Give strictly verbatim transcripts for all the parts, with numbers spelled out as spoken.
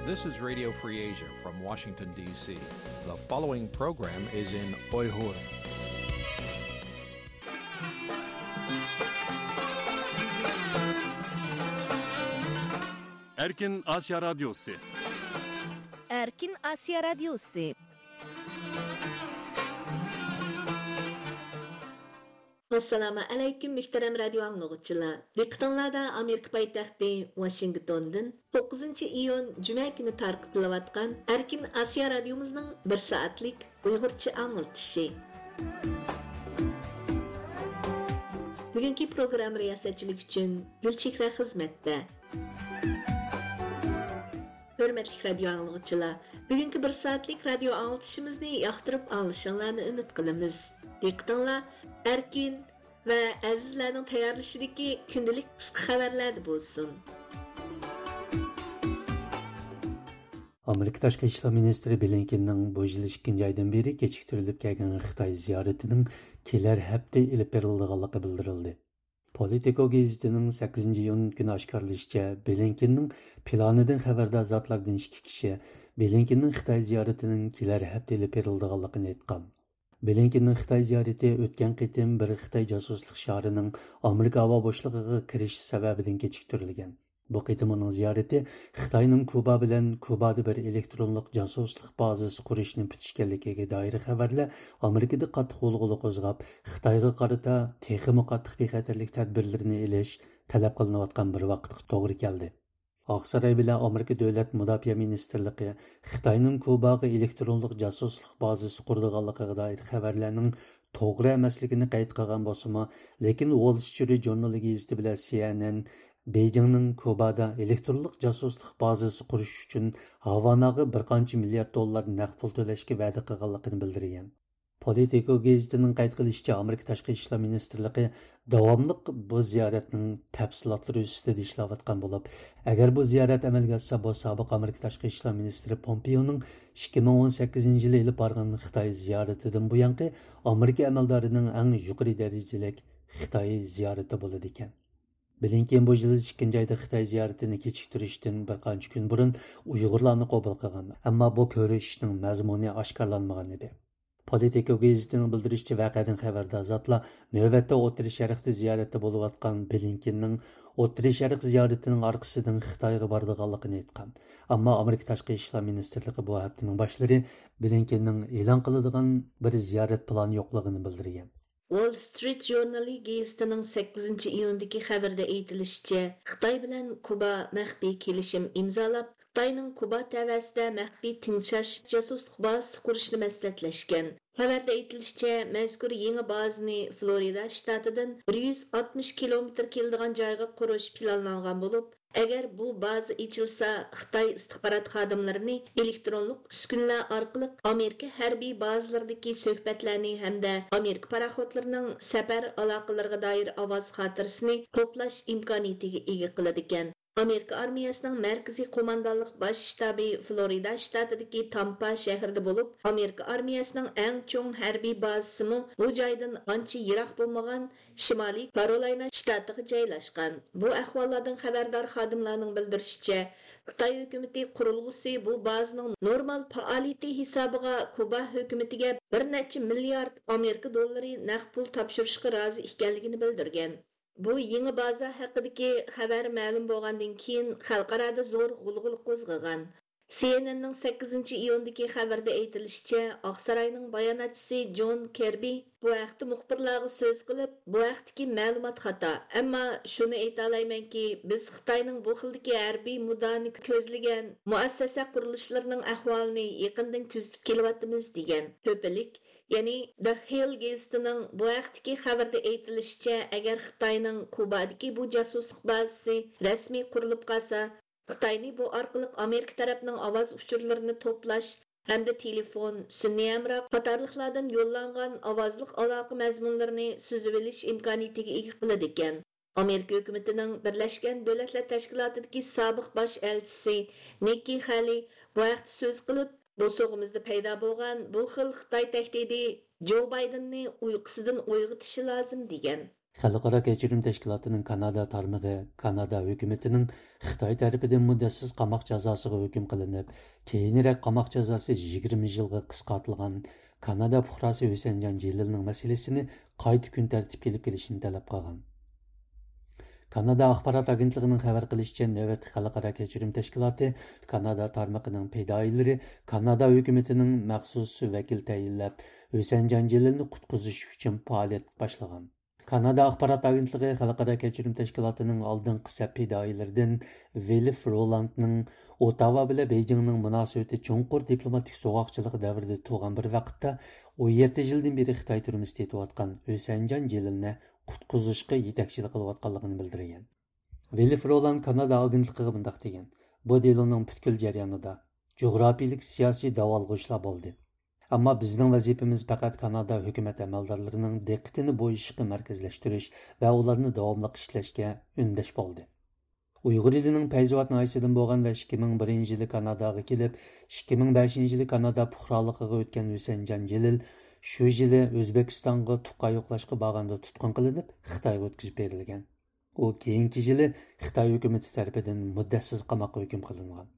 This is Radio Free Asia from Washington, D C. The following program is in Uyghur. Erkin Asya Radyosu. Erkin Asya Radyosu. ئەسسالامۇ ئەلەيكۇم، مۆھتەرەم رادىيو ئاڭلىغۇچىلار. دىققىتىڭلاردا ئامېرىكا پايتەختى ۋاشىنگتوندىن توققۇزىنچى ئىيۇن جۈمە كۈنى تارقىتىلىۋاتقان ئەركىن ئاسىيا رادىيومىزنىڭ بىر سائەتلىك ئۇيغۇرچە ئاڭلىتىشى. بۈگۈنكى پروگرامما رىياسەتچىلىكى ئۈچۈن گۈلچېھرە خىزمەتتە. ھۆرمەتلىك رادىيو ئاڭلىغۇچىلار، بۈگۈنكى بىر سائەتلىك رادىيو ئاڭلىتىشىمىزنى ياقتۇرۇپ ئاڭلىشىڭلارنى ئۈمىد قىلىمىز. دىققىتىڭلار ئەركىن ۋە ئەزىزلەرنىڭ تەييارلىشىدىكى كۈندىلىك قىسقا خەۋەرلەردە بولسۇن. ئامېرىكا تاشقى ئىشلار مىنىستىرى بلىنكېننىڭ بۇ يىل ئىككىنچى ئايدىن بېرى كېچىكتۈرۈلۈپ كەلگەن خىتاي زىيارىتىنىڭ كېلەر ھەپتە ئېلىپ بېرىلىدىغانلىقى بىلدۈرۈلدى. پولىتىكو گېزىتىنىڭ سەككىزىنچى ئىيۇن كۈنى ئاشكارىلىشىچە، بلىنكېننىڭ پىلانىدىن خەۋەردار زاتلاردىن ئىككى كىشى بلىنكېننىڭ خىتاي زىيارىتىنىڭ كېلەر ھەپتە ئېلىپ بېرىلىدىغانلىقىنى ئېيتقان. بلىنكېننىڭ خىتاي زىيارىتى ئۆتكەن قېتىم بىر خىتاي جاسۇسلۇق شارىنىڭ ئامېرىكا ھاۋا بوشلۇقىغا كىرىشى سەۋەبىدىن كېچىكتۈرۈلگەن. بۇ قېتىم ئۇنىڭ زىيارىتى خىتاينىڭ كۇبا بىلەن كۇبادا بىر ئېلېكترونلۇق جاسۇسلۇق بازىسى قۇرۇشنى پۈتۈشكەنلىكىگە دائىر خەۋەرلەر ئامېرىكىدا قاتتىق غۇلغۇلا قوزغاپ، خىتايغا قارىتا تېخىمۇ قاتتىق بىخەتەرلىك تەدبىرلىرىنى ئېلىش تەلەپ قىلىنىۋاتقان بىر ۋاقىتقا توغرا كەلدى. ئاقساراي بىلەن ئامېرىكا دۆلەت مۇداپىئە مىنىستىرلىقى خىتاينىڭ كۇباغا ئېلېكترونلۇق جاسۇسلۇق بازىسى قۇرىدىغانلىقىغا دائىر خەۋەرلەرنىڭ توغرا ئەمەسلىكىنى قەيت قىلغان بولسىمۇ، لېكىن ۋول سترىت ژۇرنىلى گېزىتى بىلەن سى ئېن ئېن بېيجىڭنىڭ كۇبادا ئېلېكترونلۇق جاسۇسلۇق بازىسى قۇرۇش ئۈچۈن ھاۋاناغا بىر قانچە مىليارد دوللار نەق پۇل تۆلەشكە ۋەدە قىلغانلىقىنى بىلدۈرگەن. پولىتىكو گېزىتىنىڭ قەيت قىلىشىچە، ئامېرىكا تاشقى ئىشلار مىنىستىرلىقى داۋاملىق بۇ زىيارەتنىڭ تەپسىلاتلىرى ئۈستىدە ئىشلەۋاتقان بولۇپ، ئەگەر بۇ زىيارەت ئەمەلگە ئاشسا، بۇ سابىق ئامېرىكا تاشقى ئىشلار مىنىستىرى پومپېيونىڭ ئىككى مىڭ ئون سەككىزىنچى يىلى ئېلىپ بارغان خىتاي زىيارىتىدىن بۇيانقى ئامېرىكا ئەمەلدارىنىڭ ئەڭ يۇقىرى دەرىجىلىك خىتاي زىيارىتى بولىدىكەن. بلىنكېن بۇ يىل ئىككىنچى ئايدا خىتاي زىيارىتىنى كېچىكتۈرۈشتىن بىر قانچە كۈن بۇرۇن ئۇيغۇرلارنى قوبۇل قىلغان، ئەمما بۇ كۆرۈشۈشنىڭ مەزمۇنى ئاشكارىلانمىغان ئىدى. پولىتىكو گېزىتىنىڭ بىلدۈرۈشىچە، ۋەقەدىن خەۋەردار زاتلار نۆۋەتتە ئوتتۇرا شەرقتە زىيارەتتە بولۇۋاتقان بلىنكېننىڭ ئوتتۇرا شەرق زىيارىتىنىڭ ئارقىسىدىن خىتايغا بارىدىغانلىقىنى ئېيتقان. ئەمما ئامېرىكا تاشقى ئىشلار مىنىستىرلىقى بۇ ھەپتىنىڭ باشلىرى بلىنكېننىڭ ئېلان قىلىدىغان بىر زىيارەت پىلانى يوقلۇقىنى بىلدۈرگەن. ۋول سترىت ژۇرنىلى گېزىتىنىڭ سەككىزىنچى ئىيۇندىكى خەۋىرىدە ئېيتىلىشىچە، خىتاي بىلەن كۇبا مەخپىي كېلىشىم ئىمزالاپ، خىتاينىڭ كۇبا تەۋەسىدە مەخپىي تىڭشاش جاسۇسلۇق بازىسى قۇرۇشنى مەسلىھەتلەشكەن. خەۋەردە ئېيتىلىشىچە، مەزكۇر يېڭى بازىنى فلورىدا شتاتىدىن بىر يۈز ئاتمىش كىلومېتىر كېلىدىغان جايغا قۇرۇش پىلانلانغان بولۇپ، ئەگەر بۇ بازا ئېچىلسا، خىتاي ئىستىخبارات خادىملىرىنى ئېلېكترونلۇق ئۈسكۈنىلەر ئارقىلىق ئامېرىكا ھەربىي بازىلىرىدىكى سۆھبەتلەرنى ھەمدە ئامېرىكا پاراخوتلىرىنىڭ سەپەر ئالاقىلىرىغا دائىر ئاۋاز خاتىرىسىنى توپلاش ئىمكانىيىتىگە ئىگە قىلىدىكەن. ئامېرىكا ئارمىيەسىنىڭ مەركىزىي قوماندانلىق باش شتابى فلورىدا شتاتىدىكى تامپا شەھىرىدە بولۇپ، ئامېرىكا ئارمىيەسىنىڭ ئەڭ چوڭ ھەربىي بازىسىمۇ بۇ جايدىن ئانچە يىراق بولمىغان شىمالىي كارولاينا شتاتىغا جايلاشقان. بۇ ئەھۋاللاردىن خەۋەردار خادىملارنىڭ بىلدۈرۈشىچە، خىتاي ھۆكۈمىتى قۇرۇلغۇسى بۇ بازىنىڭ نورمال پائالىيىتى ھېسابىغا كۇبا ھۆكۈمىتىگە بىر نەچچە مىليارد ئامېرىكا دوللىرى نەق پۇل تاپشۇرۇشقا رازى ئىكەنلىكىنى بىلدۈرگەن. بۇ يېڭى بازا ھەققىدىكى خەۋەر مەلۇم بولغاندىن كېيىن، خەلقئارادا زور غۇلغۇلا قوزغىغان. سى ئېن ئېننىڭ سەككىزىنچى ئىيۇندىكى خەۋىرىدە ئېيتىلىشىچە، ئاقساراينىڭ باياناتچىسى جون كېربى بۇ ھەقتە مۇخبىرلارغا سۆز قىلىپ، بۇ ھەقتىكى مەلۇمات خاتا، ئەمما شۇنى ئېيتالايمەنكى، بىز خىتاينىڭ بۇ خىلدىكى ھەربىي مۇداھىنە كۆزلىگەن مۇئەسسەسە قۇرۇلۇشلىرىنىڭ ئەھۋالىنى يېقىندىن كۆزىتىپ كېلىۋاتىمىز، دېگەن. تۆپىلىك، يەنى The Hill گېزىتىنىڭ بۇ ھەقتىكى خەۋىرىدە ئېيتىلىشىچە، ئەگەر خىتاينىڭ كۇبادىكى بۇ جاسۇسلۇق بازىسى رەسمىي قۇرۇلۇپ قالسا، خىتاينى بۇ ئارقىلىق ئامېرىكا تەرەپنىڭ ئاۋاز ئۇچۇرلىرىنى توپلاش ھەمدە تېلېفون، سۈنئىي ھەمراھ قاتارلىقلاردىن يوللانغان ئاۋازلىق ئالاقە مەزمۇنلىرىنى سۈزۈۋېلىش ئىمكانىيىتىگە ئىگە قىلىدىكەن. ئامېرىكا ھۆكۈمىتىنىڭ بىرلەشكەن دۆلەتلەر تەشكىلاتىدىكى سابىق باش ئەلچىسى نىككى خەلى بۇ ھەقتە سۆز قىلىپ، بوسۇغىمىزدا پەيدا بولغان بۇ خىل خىتاي تەھدىتى جو بايدېننى ئۇيقۇسىدىن ئويغىتىشى لازىم، دېگەن. خەلقئارا كەچۈرۈم تەشكىلاتىنىڭ كانادا تارمىقى كانادا ھۆكۈمىتىنىڭ خىتاي تەرىپىدىن مۇددەتسىز قاماق جازاسىغا ھۆكۈم قىلىنىپ، كېيىنرەك قاماق جازاسى يىگىرمە يىلغا قىسقارتىلغان كانادا پۇقراسى ھۈسەنجان جېلىلنىڭ مەسىلىسىنى قايتا كۈن تەرتىپكە ئېلىپ كېلىشنى تەلەپ قىلغان. كانادا ئاخبارات ئاگېنتلىقىنىڭ خەۋەر قىلىشىچە، نۆۋەتتە خەلقئارا كەچۈرۈم تەشكىلاتى كانادا تارمىقىنىڭ پىدائىيلىرى كانادا ھۆكۈمىتىنىڭ مەخسۇس ۋەكىل تەيىنلەپ، ھۈسەنجان جېلىلنى قۇتقۇزۇش ئۈچۈن پائالىيەت باشلىغان. كانادا ئاخبارات ئاگېنتلىقى خەلقئارا كەچۈرۈم تەشكىلاتىنىڭ ئالدىنقى سەپ پىدائىيلىرىدىن ۋىلف رولاندنىڭ ئوتاۋا بىلەن بېيجىڭنىڭ مۇناسىۋىتى چوڭقۇر دىپلوماتىك سوغۇقچىلىقى دەۋرىدە تۇغان بىر ۋاقىتتا ئون يەتتە يىلدىن بېرى خىتاي تۈرمىسىدە يېتىۋاتقان ھۈسەنجان جېلىلنى قۇتقۇزۇشقا يېتەكچىلىك قىلىۋاتقانلىقىنى بىلدۈرگەن. ۋىلف رولاند كانادا ئاگېنتلىقىغا مۇنداق دېگەن: بۇ دېلونىڭ پۈتكۈل جەريانىدا جۇغراپىيىلىك سىياسىي داۋالغۇشلار بولدى. ئەمما بىزنىڭ ۋەزىپىمىز پەقەت كانادا ھۆكۈمەت ئەمەلدارلىرىنىڭ دىققىتىنى بۇ ئىشقا مەركەزلەشتۈرۈش ۋە ئۇلارنى داۋاملىق ئىشلەشكە ئۈندەش بولدى. ئۇيغۇر ئېلىنىڭ پەيزىۋات ناھىيەسىدىن بولغان ۋە ئىككى مىڭ بىرىنچى يىلى كاناداغا كېلىپ، ئىككى مىڭ بەشىنچى يىلى كانادا پۇقرالىقىغا ئۆتكەن ھۈسەنجان جېلىل شۇ يىلى ئۆزبېكىستانغا تۇغقان يوقلاشقا بارغاندا تۇتقۇن قىلىنىپ، خىتايغا ئۆتكۈزۈپ بېرىلگەن. ئۇ كېيىنكى يىلى خىتاي ھۆكۈمىتى تەرىپىدىن مۇددەتسىز قاماققا ھۆكۈم قىلىنغان.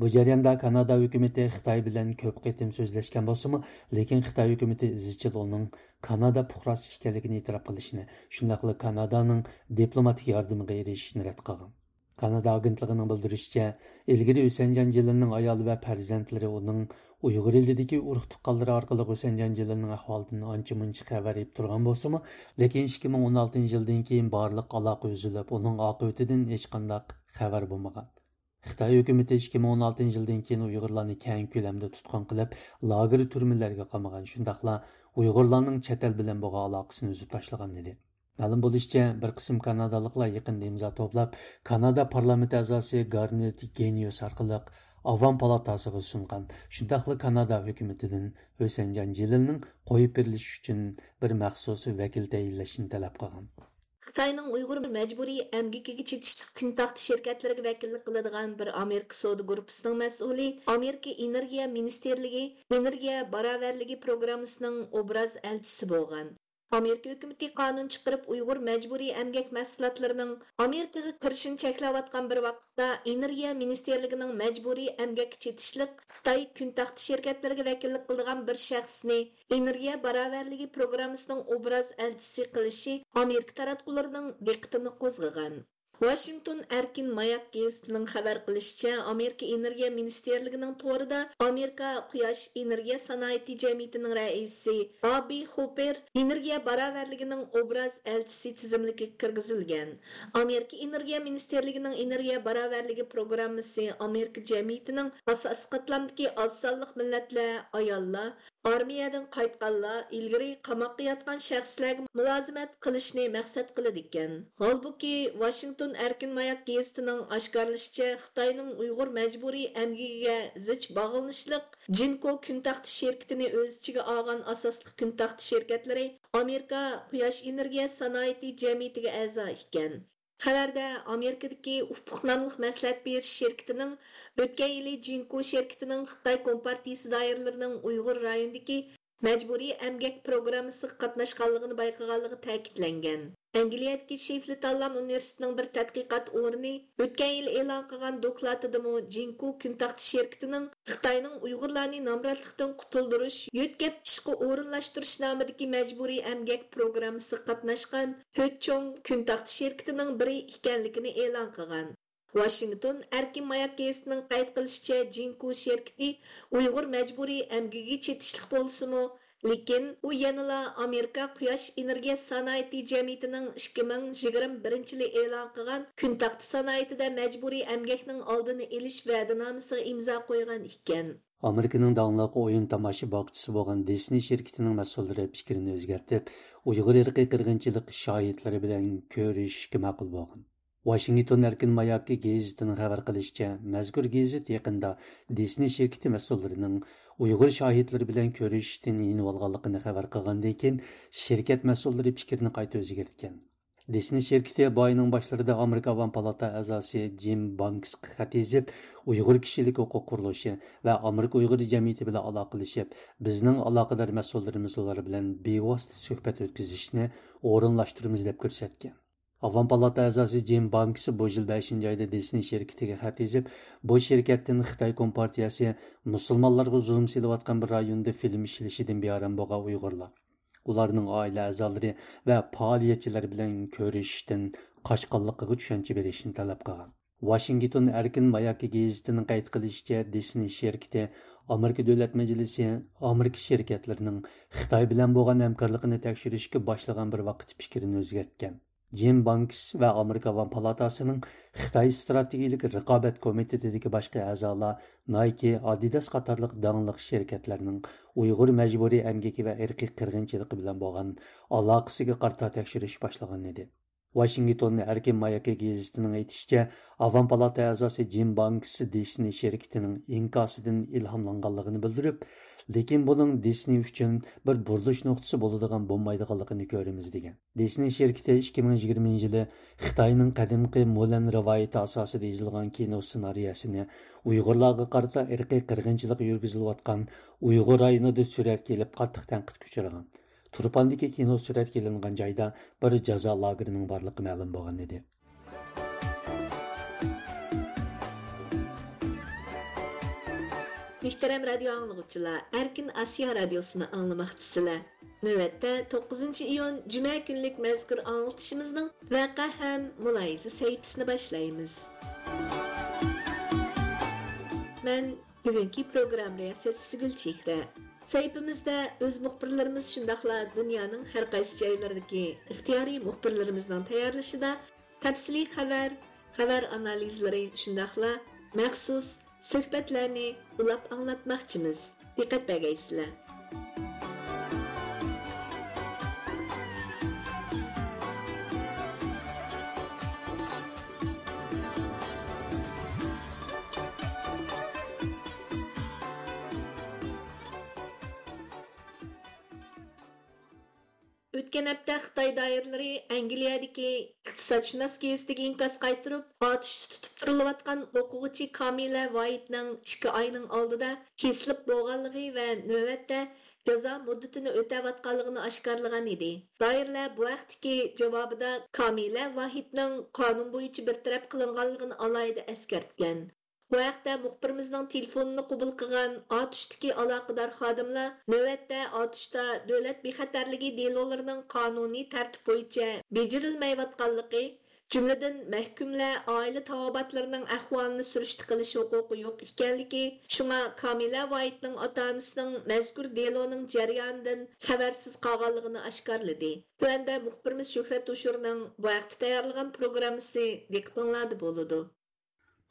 بۇ جەرياندا كانادا ھۆكۈمىتى خىتاي بىلەن كۆپ قېتىم سۆزلەشكەن بولسىمۇ، لېكىن خىتاي ھۆكۈمىتى ئىزچىل ئۇنىڭ كانادا پۇقراسى ئىكەنلىكىنى ئېتىراپ قىلىشىنى، شۇنداقلا كانادانىڭ دىپلوماتىك ياردىمىگە ئېرىشىشىنى رەت قىلغان. كانادا ئاگېنتلىقىنىڭ بىلدۈرۈشىچە، ئىلگىرى ھۈسەنجان جېلىلنىڭ ئايالى ۋە پەرزەنتلىرى ئۇنىڭ ئۇيغۇر ئېلىدىكى ئۇرۇق تۇغقانلىرى ئارقىلىق ھۈسەنجان جېلىلنىڭ ئەھۋالىدىن ئانچە-مۇنچە خەۋەر ئېلىپ تۇرغان بولسىمۇ، لېكىن ئىككى مىڭ ئون ئالتىنچى يىلدىن كېيىن بارلىق ئالاقە ئۈزۈلۈپ، ئۇنىڭ ئاقىۋىتىدىن ھېچقانداق خەۋەر بولمىغان. خىتاي ھۆكۈمىتى ئىككى مىڭ ئون ئالتىنچى يىلدىن كېيىن ئۇيغۇرلارنى كەڭ كۆلەمدە تۇتقۇن قىلىپ، لاگېر تۈرمىلەرگە قامىغان، شۇنداقلا ئۇيغۇرلارنىڭ چەت ئەل بىلەن بولغان ئالاقىسىنى ئۈزۈپ تاشلىغان ئىدى. مەلۇم بولۇشىچە، بىر قىسىم كانادالىقلار يېقىندا ئىمزا توپلاپ، كانادا پارلامېنت ئەزاسى گارنېت گېنىيوس ئارقىلىق ئاۋام پالاتاسىغا سۇنغان، شۇنداقلا كانادا ھۆكۈمىتىدىن ھۈسەنجان جېلىلنىڭ قويۇپ بېرىلىشى ئۈچۈن بىر مەخسۇس ۋەكىل تەيىنلەشنى تەلەپ قىلغان. خىتاينىڭ ئۇيغۇر مەجبۇرىي ئەمگىكىگە چېتىشلىق كۈنتاغدا شىركەتلىرىگە ۋەكىللىك قىلىدىغان بىر ئامېرىكا سودا گۇرۇپپىسىنىڭ مەسئۇلى ئامېرىكا ئېنېرگىيە مىنىستىرلىكى ئېنېرگىيە باراۋەرلىكى پروگراممىسىنىڭ ئوبراز ئەلچىسى بولغان. ئامېرىكا ھۆكۈمىتى قانۇن چىقىرىپ، ئۇيغۇر مەجبۇرىي ئەمگەك مەھسۇلاتلىرىنىڭ ئامېرىكىغا كىرىشىنى چەكلەۋاتقان بىر ۋاقىتتا، ئېنېرگىيە مىنىستىرلىكىنىڭ مەجبۇرىي ئەمگەككە چېتىشلىق خىتاي كۈنتاغدا شىركەتلىرىگە ۋەكىللىك قىلىدىغان بىر شەخسنى ئېنېرگىيە باراۋەرلىكى پروگراممىسىنىڭ ئوبراز ئەلچىسى قىلىشى ئامېرىكا تاراتقۇلىرىنىڭ دىققىتىنى قوزغىغان. ۋاشىنگتون ئەركىن ماياك گېزىتىنىڭ خەۋەر قىلىشىچە، ئامېرىكا ئېنېرگىيە مىنىستىرلىكىنىڭ تورىدا ئامېرىكا قۇياش ئېنېرگىيە سانائىتى جەمئىيىتىنىڭ رەئىسى ئابى خوپېر ئېنېرگىيە باراۋەرلىكىنىڭ ئوبراز ئەلچىسى تىزىملىكىگە كىرگۈزۈلگەن. ئامېرىكا ئېنېرگىيە مىنىستىرلىكىنىڭ ئېنېرگىيە باراۋەرلىكى پروگراممىسى ئامېرىكا جەمئىيىتىنىڭ ئاساسىي قاتلامدىكى ئاز سانلىق مىللەتلەر، ئاياللار، ئارمىيەدىن قايتقانلار، ئىلگىرى قاماققا ياتقان شەخسلەرگە مۇلازىمەت قىلىشنى مەقسەت قىلىدىكەن. ھالبۇكى، ۋاشىنگتون ئەركىن ماياك گېزىتىنىڭ ئاشكارىلىشىچە، خىتاينىڭ ئۇيغۇر مەجبۇرىي ئەمگىكىگە زىچ باغلىنىشلىق جىنكو كۈنتاغدا شىركىتىنى ئۆز ئىچىگە ئالغان ئاساسلىق كۈنتاغدا شىركەتلىرى ئامېرىكا قۇياش ئېنېرگىيە سانائىتى جەمئىيىتىگە ئەزا ئىكەن. خەۋەردە ئامېرىكىدىكى ئۇپۇق ناملىق مەسلىھەت بېرىش شىركىتىنىڭ ئۆتكەن يىلى جىنكو شىركىتىنىڭ خىتاي كومپارتىيىسى دائىرىلىرىنىڭ ئۇيغۇر رايونىدىكى مەجبۇرىي ئەمگەك پروگراممىسىغا قاتناشقانلىقىنى بايقىغانلىقى تەكىتلەنگەن. ئەنگلىيەدىكى شېفلى تاللام ئۇنىۋېرسىتېتىنىڭ بىر تەتقىقات ئورنى ئۆتكەن يىلى ئېلان قىلغان دوكلاتىدىمۇ جىنكو كۈنتاغدا شىركىتىنىڭ خىتاينىڭ ئۇيغۇرلارنى نامراتلىقتىن قۇتۇلدۇرۇش، يۆتكەپ ئىشقا ئورۇنلاشتۇرۇش نامىدىكى مەجبۇرىي ئەمگەك پروگراممىسىغا قاتناشقان تۆت چوڭ كۈنتاغدا شىركىتىنىڭ بىرى ئىكەنلىكىنى ئېلان قىلغان. ۋاشىنگتون ئەركىن ماياك گېزىتىنىڭ قەيت قىلىشىچە، جىنكو شىركىتى ئۇيغۇر مەجبۇرىي ئەمگىكىگە چېتىشلىق بولسىمۇ، لېكىن ئۇ يەنىلا ئامېرىكا قۇياش ئېنېرگىيە سانائىتى جەمئىيىتىنىڭ ئىككى مىڭ يىگىرمە بىرىنچى يىلى ئېلان قىلغان كۈنتاغدا سانائىتىدە مەجبۇرىي ئەمگەكنىڭ ئالدىنى ئېلىش ۋەدىنامىسىغا ئىمزا قويغان ئىكەن. ئامېرىكىنىڭ داڭلىق ئويۇن تاماشا باغچىسى بولغان دىسنېي شىركىتىنىڭ مەسئۇللىرى پىكرىنى ئۆزگەرتىپ، ئۇيغۇر ئىرقىي قىرغىنچىلىق شاھىتلىرى بىلەن كۆرۈشۈشكە ماقۇل بولغان. ۋاشىنگتون ئەركىن ماياكى گېزىتىنىڭ خەۋەر قىلىشىچە، مەزكۇر گېزىت يېقىندا دىسنېي شىركىتى مەسئۇللىرىنىڭ ئۇيغۇر شاھىتلىرى بىلەن كۆرۈشۈشتىن يېنىۋالغانلىقىنى خەۋەر قىلغاندىن كېيىن، شىركەت مەسئۇللىرى پىكرىنى قايتا ئۆزگەرتكەن. دىسنېي شىركىتى بۇ ئاينىڭ باشلىرىدا ئامېرىكا ئاۋام پالاتا ئەزاسى جىم بانكسقا خەت يېزىپ، ئۇيغۇر كىشىلىك ھوقۇق قۇرۇلۇشى ۋە ئامېرىكا ئۇيغۇر جەمئىيىتى بىلەن ئالاقىلىشىپ، بىزنىڭ ئالاقىدار مەسئۇللىرىمىز ئۇلار بىلەن بىۋاسىتە سۆھبەت ئۆتكۈزۈشنى ئورۇنلاشتۇرىمىز، دەپ كۆرسەتكەن. ئاۋام پالاتا ئەزاسى جىم بانكس بۇ يىل بەشىنچى ئايدا دىسنېي شىركىتىگە خەت يېزىپ، بۇ شىركەتتىن خىتاي كومپارتىيەسى مۇسۇلمانلارغا زۇلۇم سېلىۋاتقان بىر رايوندا فىلىم ئىشلىشىدىن بىئارام بولغان ئۇيغۇرلار، ئۇلارنىڭ ئائىلە ئەزالىرى ۋە پائالىيەتچىلەر بىلەن كۆرۈشۈشتىن قاچقانلىقىغا چۈشەنچە بېرىشنى تەلەپ قىلغان. ۋاشىنگتون ئەركىن ماياكى گېزىتىنىڭ قەيت قىلىشىچە، دىسنېي شىركىتى ئامېرىكا دۆلەت مەجلىسى ئامېرىكا شىركەتلىرىنىڭ خىتاي بىلەن بولغان ھەمكارلىقىنى تەكشۈرۈشكە باشلىغان بىر ۋاقىتتا پىكرىنى ئۆزگەرتكەن. جىم بانكس ۋە ئامېرىكا ئاۋام پالاتاسىنىڭ خىتاي ئىستراتېگىيىلىك رىقابەت كومىتېتىدىكى باشقا ئەزالار نايكى، ئادىداس قاتارلىق داڭلىق شىركەتلەرنىڭ ئۇيغۇر مەجبۇرىي ئەمگىكى ۋە ئىرقىي قىرغىنچىلىقى بىلەن بولغان ئالاقىسىگە قارىتا تەكشۈرۈش باشلىغانىدى. ۋاشىنگتون ئەركىن ماياكى گېزىتىنىڭ ئېيتىشىچە، ئاۋام پالاتا ئەزاسى جىم بانكس دىسنېي شىركىتىنىڭ ئىنكاسىدىن ئىلھاملانغانلىقىنى بىلدۈرۈپ، لېكىن بۇنىڭ دىسنېي ئۈچۈن بىر بۇرۇلۇش نۇقتىسى بولىدىغان بولمايدىغانلىقىنى كۆرىمىز، دېگەن. دىسنېي شىركىتى ئىككى مىڭ يىگىرمىنچى يىلى خىتاينىڭ قەدىمكى مۇلەن رىۋايىتى ئاساسىدا يېزىلغان كىنو سېنارىيەسىنى ئۇيغۇرلارغا قارىتا ئىرقىي قىرغىنچىلىق يۈرگۈزۈلۈۋاتقان ئۇيغۇر رايونىدا سۈرەتكە ئېلىپ، قاتتىق تەنقىدكە ئۇچرىغان. تۇرپاندىكى كىنو سۈرەتكە ئېلىنغان جايدا بىر جازا لاگېرىنىڭ بارلىقى مەلۇم بولغان ئىدى. مۆھتەرەم رادىيو ئاڭلىغۇچىلار، ئەركىن ئاسىيا رادىيوسىنى ئاڭلىماقچىسىلەر. نۆۋەتتە توققۇزىنچى ئىيۇن جۈمە كۈنلۈك مەزكۇر ئاڭلىتىشىمىزنىڭ ۋەقە ھەم مۇلاھىزە سەھىپىسىنى باشلايمىز. مەن بۈگۈنكى پروگرامما رىياسەتچىسى گۈلچېھرە. سەھىپىمىزدە ئۆز مۇخبىرلىرىمىز، شۇنداقلا دۇنيانىڭ ھەر قايسى جايلىرىدىكى ئىختىيارىي مۇخبىرلىرىمىزنىڭ تەييارلىشىدا تەپسىلىي خەۋەر، خەۋەر ئانالىزلىرى، شۇنداقلا مەخسۇس سۆھبەتلەرنى ئۇلاپ ئاڭلاتماقچىمىز. دىققەت بەرگەيسىلەر. ئۆتكەن ھەپتە خىتاي دائىرىلىرى ئەنگلىيەدىكى ئىقتىسادشۇناس گېزىتىگە ئىنكاس قايتۇرۇپ، ئاتۇشتا تۇتۇپ تۇرۇلۇۋاتقان ئوقۇغۇچى كامىلە ۋايىتنىڭ ئىككى ئاينىڭ ئالدىدا كېسىلىپ بولغانلىقى ۋە نۆۋەتتە جازا مۇددىتىنى ئۆتەۋاتقانلىقىنى ئاشكارىلىغان ئىدى. دائىرىلەر بۇ ھەقتىكى جاۋابىدا كامىلە ۋاھىتنىڭ قانۇن بويىچە بىر تەرەپ قىلىنغانلىقىنى ئالاھىدە ئەسكەرتكەن. بۇ ھەقتە مۇخبىرىمىزنىڭ تېلېفونىنى قوبۇل قىلغان ئاتۇشتىكى ئالاقىدار خادىملار نۆۋەتتە ئاتۇشتا دۆلەت بىخەتەرلىكى دېلولىرىنىڭ قانۇنىي تەرتىپ بويىچە بېجىرىلمەيۋاتقانلىقى، جۈملىدىن مەھكۇملەر ئائىلە تاۋابىئاتلىرىنىڭ ئەھۋالىنى سۈرۈشتە قىلىش ھوقۇقى يوق ئىكەنلىكى، شۇڭا كامىلە ۋايىتنىڭ ئاتا-ئانىسىنىڭ مەزكۇر دېلونىڭ جەريانىدىن خەۋەرسىز قالغانلىقىنى ئاشكارىلىدى. تۆۋەندە مۇخبىرىمىز شۆھرەت ھوشۇرنىڭ بۇ ھەقتە تەييارلىغان پروگراممىسى دىققىتىڭلاردا بولىدۇ.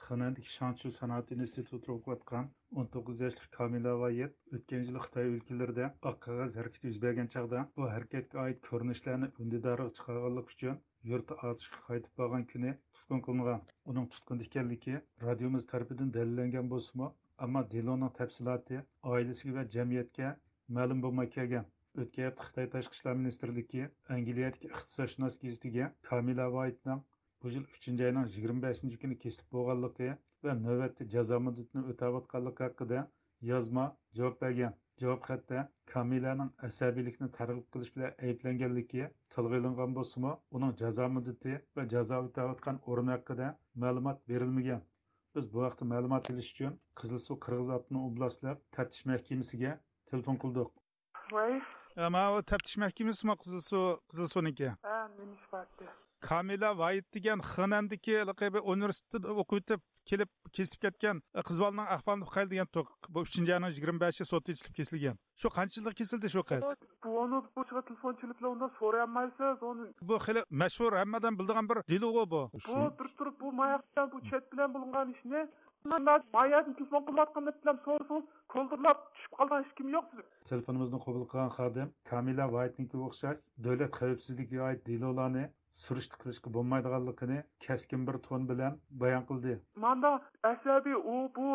خېنەندىكى شاڭچيۇ سانائەت ئىنستىتۇتىدا ئوقۇۋاتقان ئون توققۇز ياشلىق كامىلە ۋايىت ئۆتكەن يىلى خىتاي ئۆلكىلىرىدە ئاق قەغەز ھەرىكىتى يۈز بەرگەن چاغدا بۇ ھەرىكەتكە ئائىت كۆرۈنۈشلەرنى ئۈندىدارغا چىقارغانلىقى ئۈچۈن يۇرتى ئاتۇشقا قايتىپ بارغان كۈنى تۇتقۇن قىلىنغان. ئۇنىڭ تۇتقۇندا ئىكەنلىكى رادىيومىز تەرىپىدىن دەلىللەنگەن بولسىمۇ، ئەمما دېلونىڭ تەپسىلاتى ئائىلىسىگە ۋە جەمئىيەتكە مەلۇم بولماي كەلگەن. ئۆتكەن ھەپتە خىتاي تاشقى ئىشلار مىنىستىرلىكى ئەنگلىيەدىكى ئىقتىسادشۇناس گېزىتىگە كامىلە ۋايتنىڭ بۇ يىل ئۈچىنچى ئاينىڭ يىگىرمە بەشىنچى كۈنى كېسىلىپ بولغانلىقى ۋە نۆۋەتتە جازا مۇددىتىنى ئۆتەۋاتقانلىقى ھەققىدە يازما جاۋاب بەرگەن. جاۋاب خەتتە كامىلەنىڭ ئەسەبىيلىكنى تەرغىب قىلىش بىلەن ئەيىبلەنگەنلىكى تىلغا ئېلىنغان بولسىمۇ، ئۇنىڭ جازا مۇددىتى ۋە جازا ئۆتەۋاتقان ئورنى ھەققىدە مەلۇمات بېرىلمىگەن. بىز بۇ ھەقتە مەلۇمات ئېلىش ئۈچۈن قىزىلسۇ قىرغىز ئاپتونوم ئوبلاستلىق تەپتىش مەھكىمىسىگە تېلېفون قىلدۇق. ۋاي. ئە، ماۋۇ تەپتىش مەھكىمىسىمۇ قىزىلسۇ، قىزىلسۇنىڭكى؟ ھە، نېمە ئىش بار ئىدى؟ كامىلە ۋايىت دېگەن خېنەندىكى ھېلىقى بىر ئۇنىۋېرسىتېتتا ئوقۇۋېتىپ كېلىپ كېسىلىپ كەتكەن، ئە، قىز بالىنىڭ ئەھۋالىنى ئۇقايلى دېگەن توك. بۇ ئۈچىنچى ئاينىڭ يىگىرمە بەشى سوتتا ئېچىلىپ كېسىلگەن. شۇ قانچە يىلدا كېسىلدى شۇ قىز؟ بۇ ئۇنى بۇ تېلېفون چېلىپلا ئۇنداق سورىيالمايسىز ئۇنى. بۇ خېلى مەشھۇر، ھەممە ئادەم بىلىدىغان بىر دېلو بۇ. بۇ بىر تۇرۇپ بۇ ماياقتا بۇ چەت بىلەن بولۇنغان ئىشنى ماياقتىن تېلېفون قىلىۋاتقاندا بىلەن سورىسىڭىز كولدۇرلاپ چۈشۈپ قالغان ھېچكىم يوق. تېلېفونىمىزنى قوبۇل قىلغان خادىم كامىلە ۋايتنىڭكىگە ئوخشاش دۆلەت خەۋپسىزلىكىگە ئائىت دېلولارنى سۈرۈشتە قىلىشقا بولمايدىغانلىقىنى كەسكىن بىر تون بىلەن بايان قىلدى. ماندا ئەسەبىي ئۇ بۇ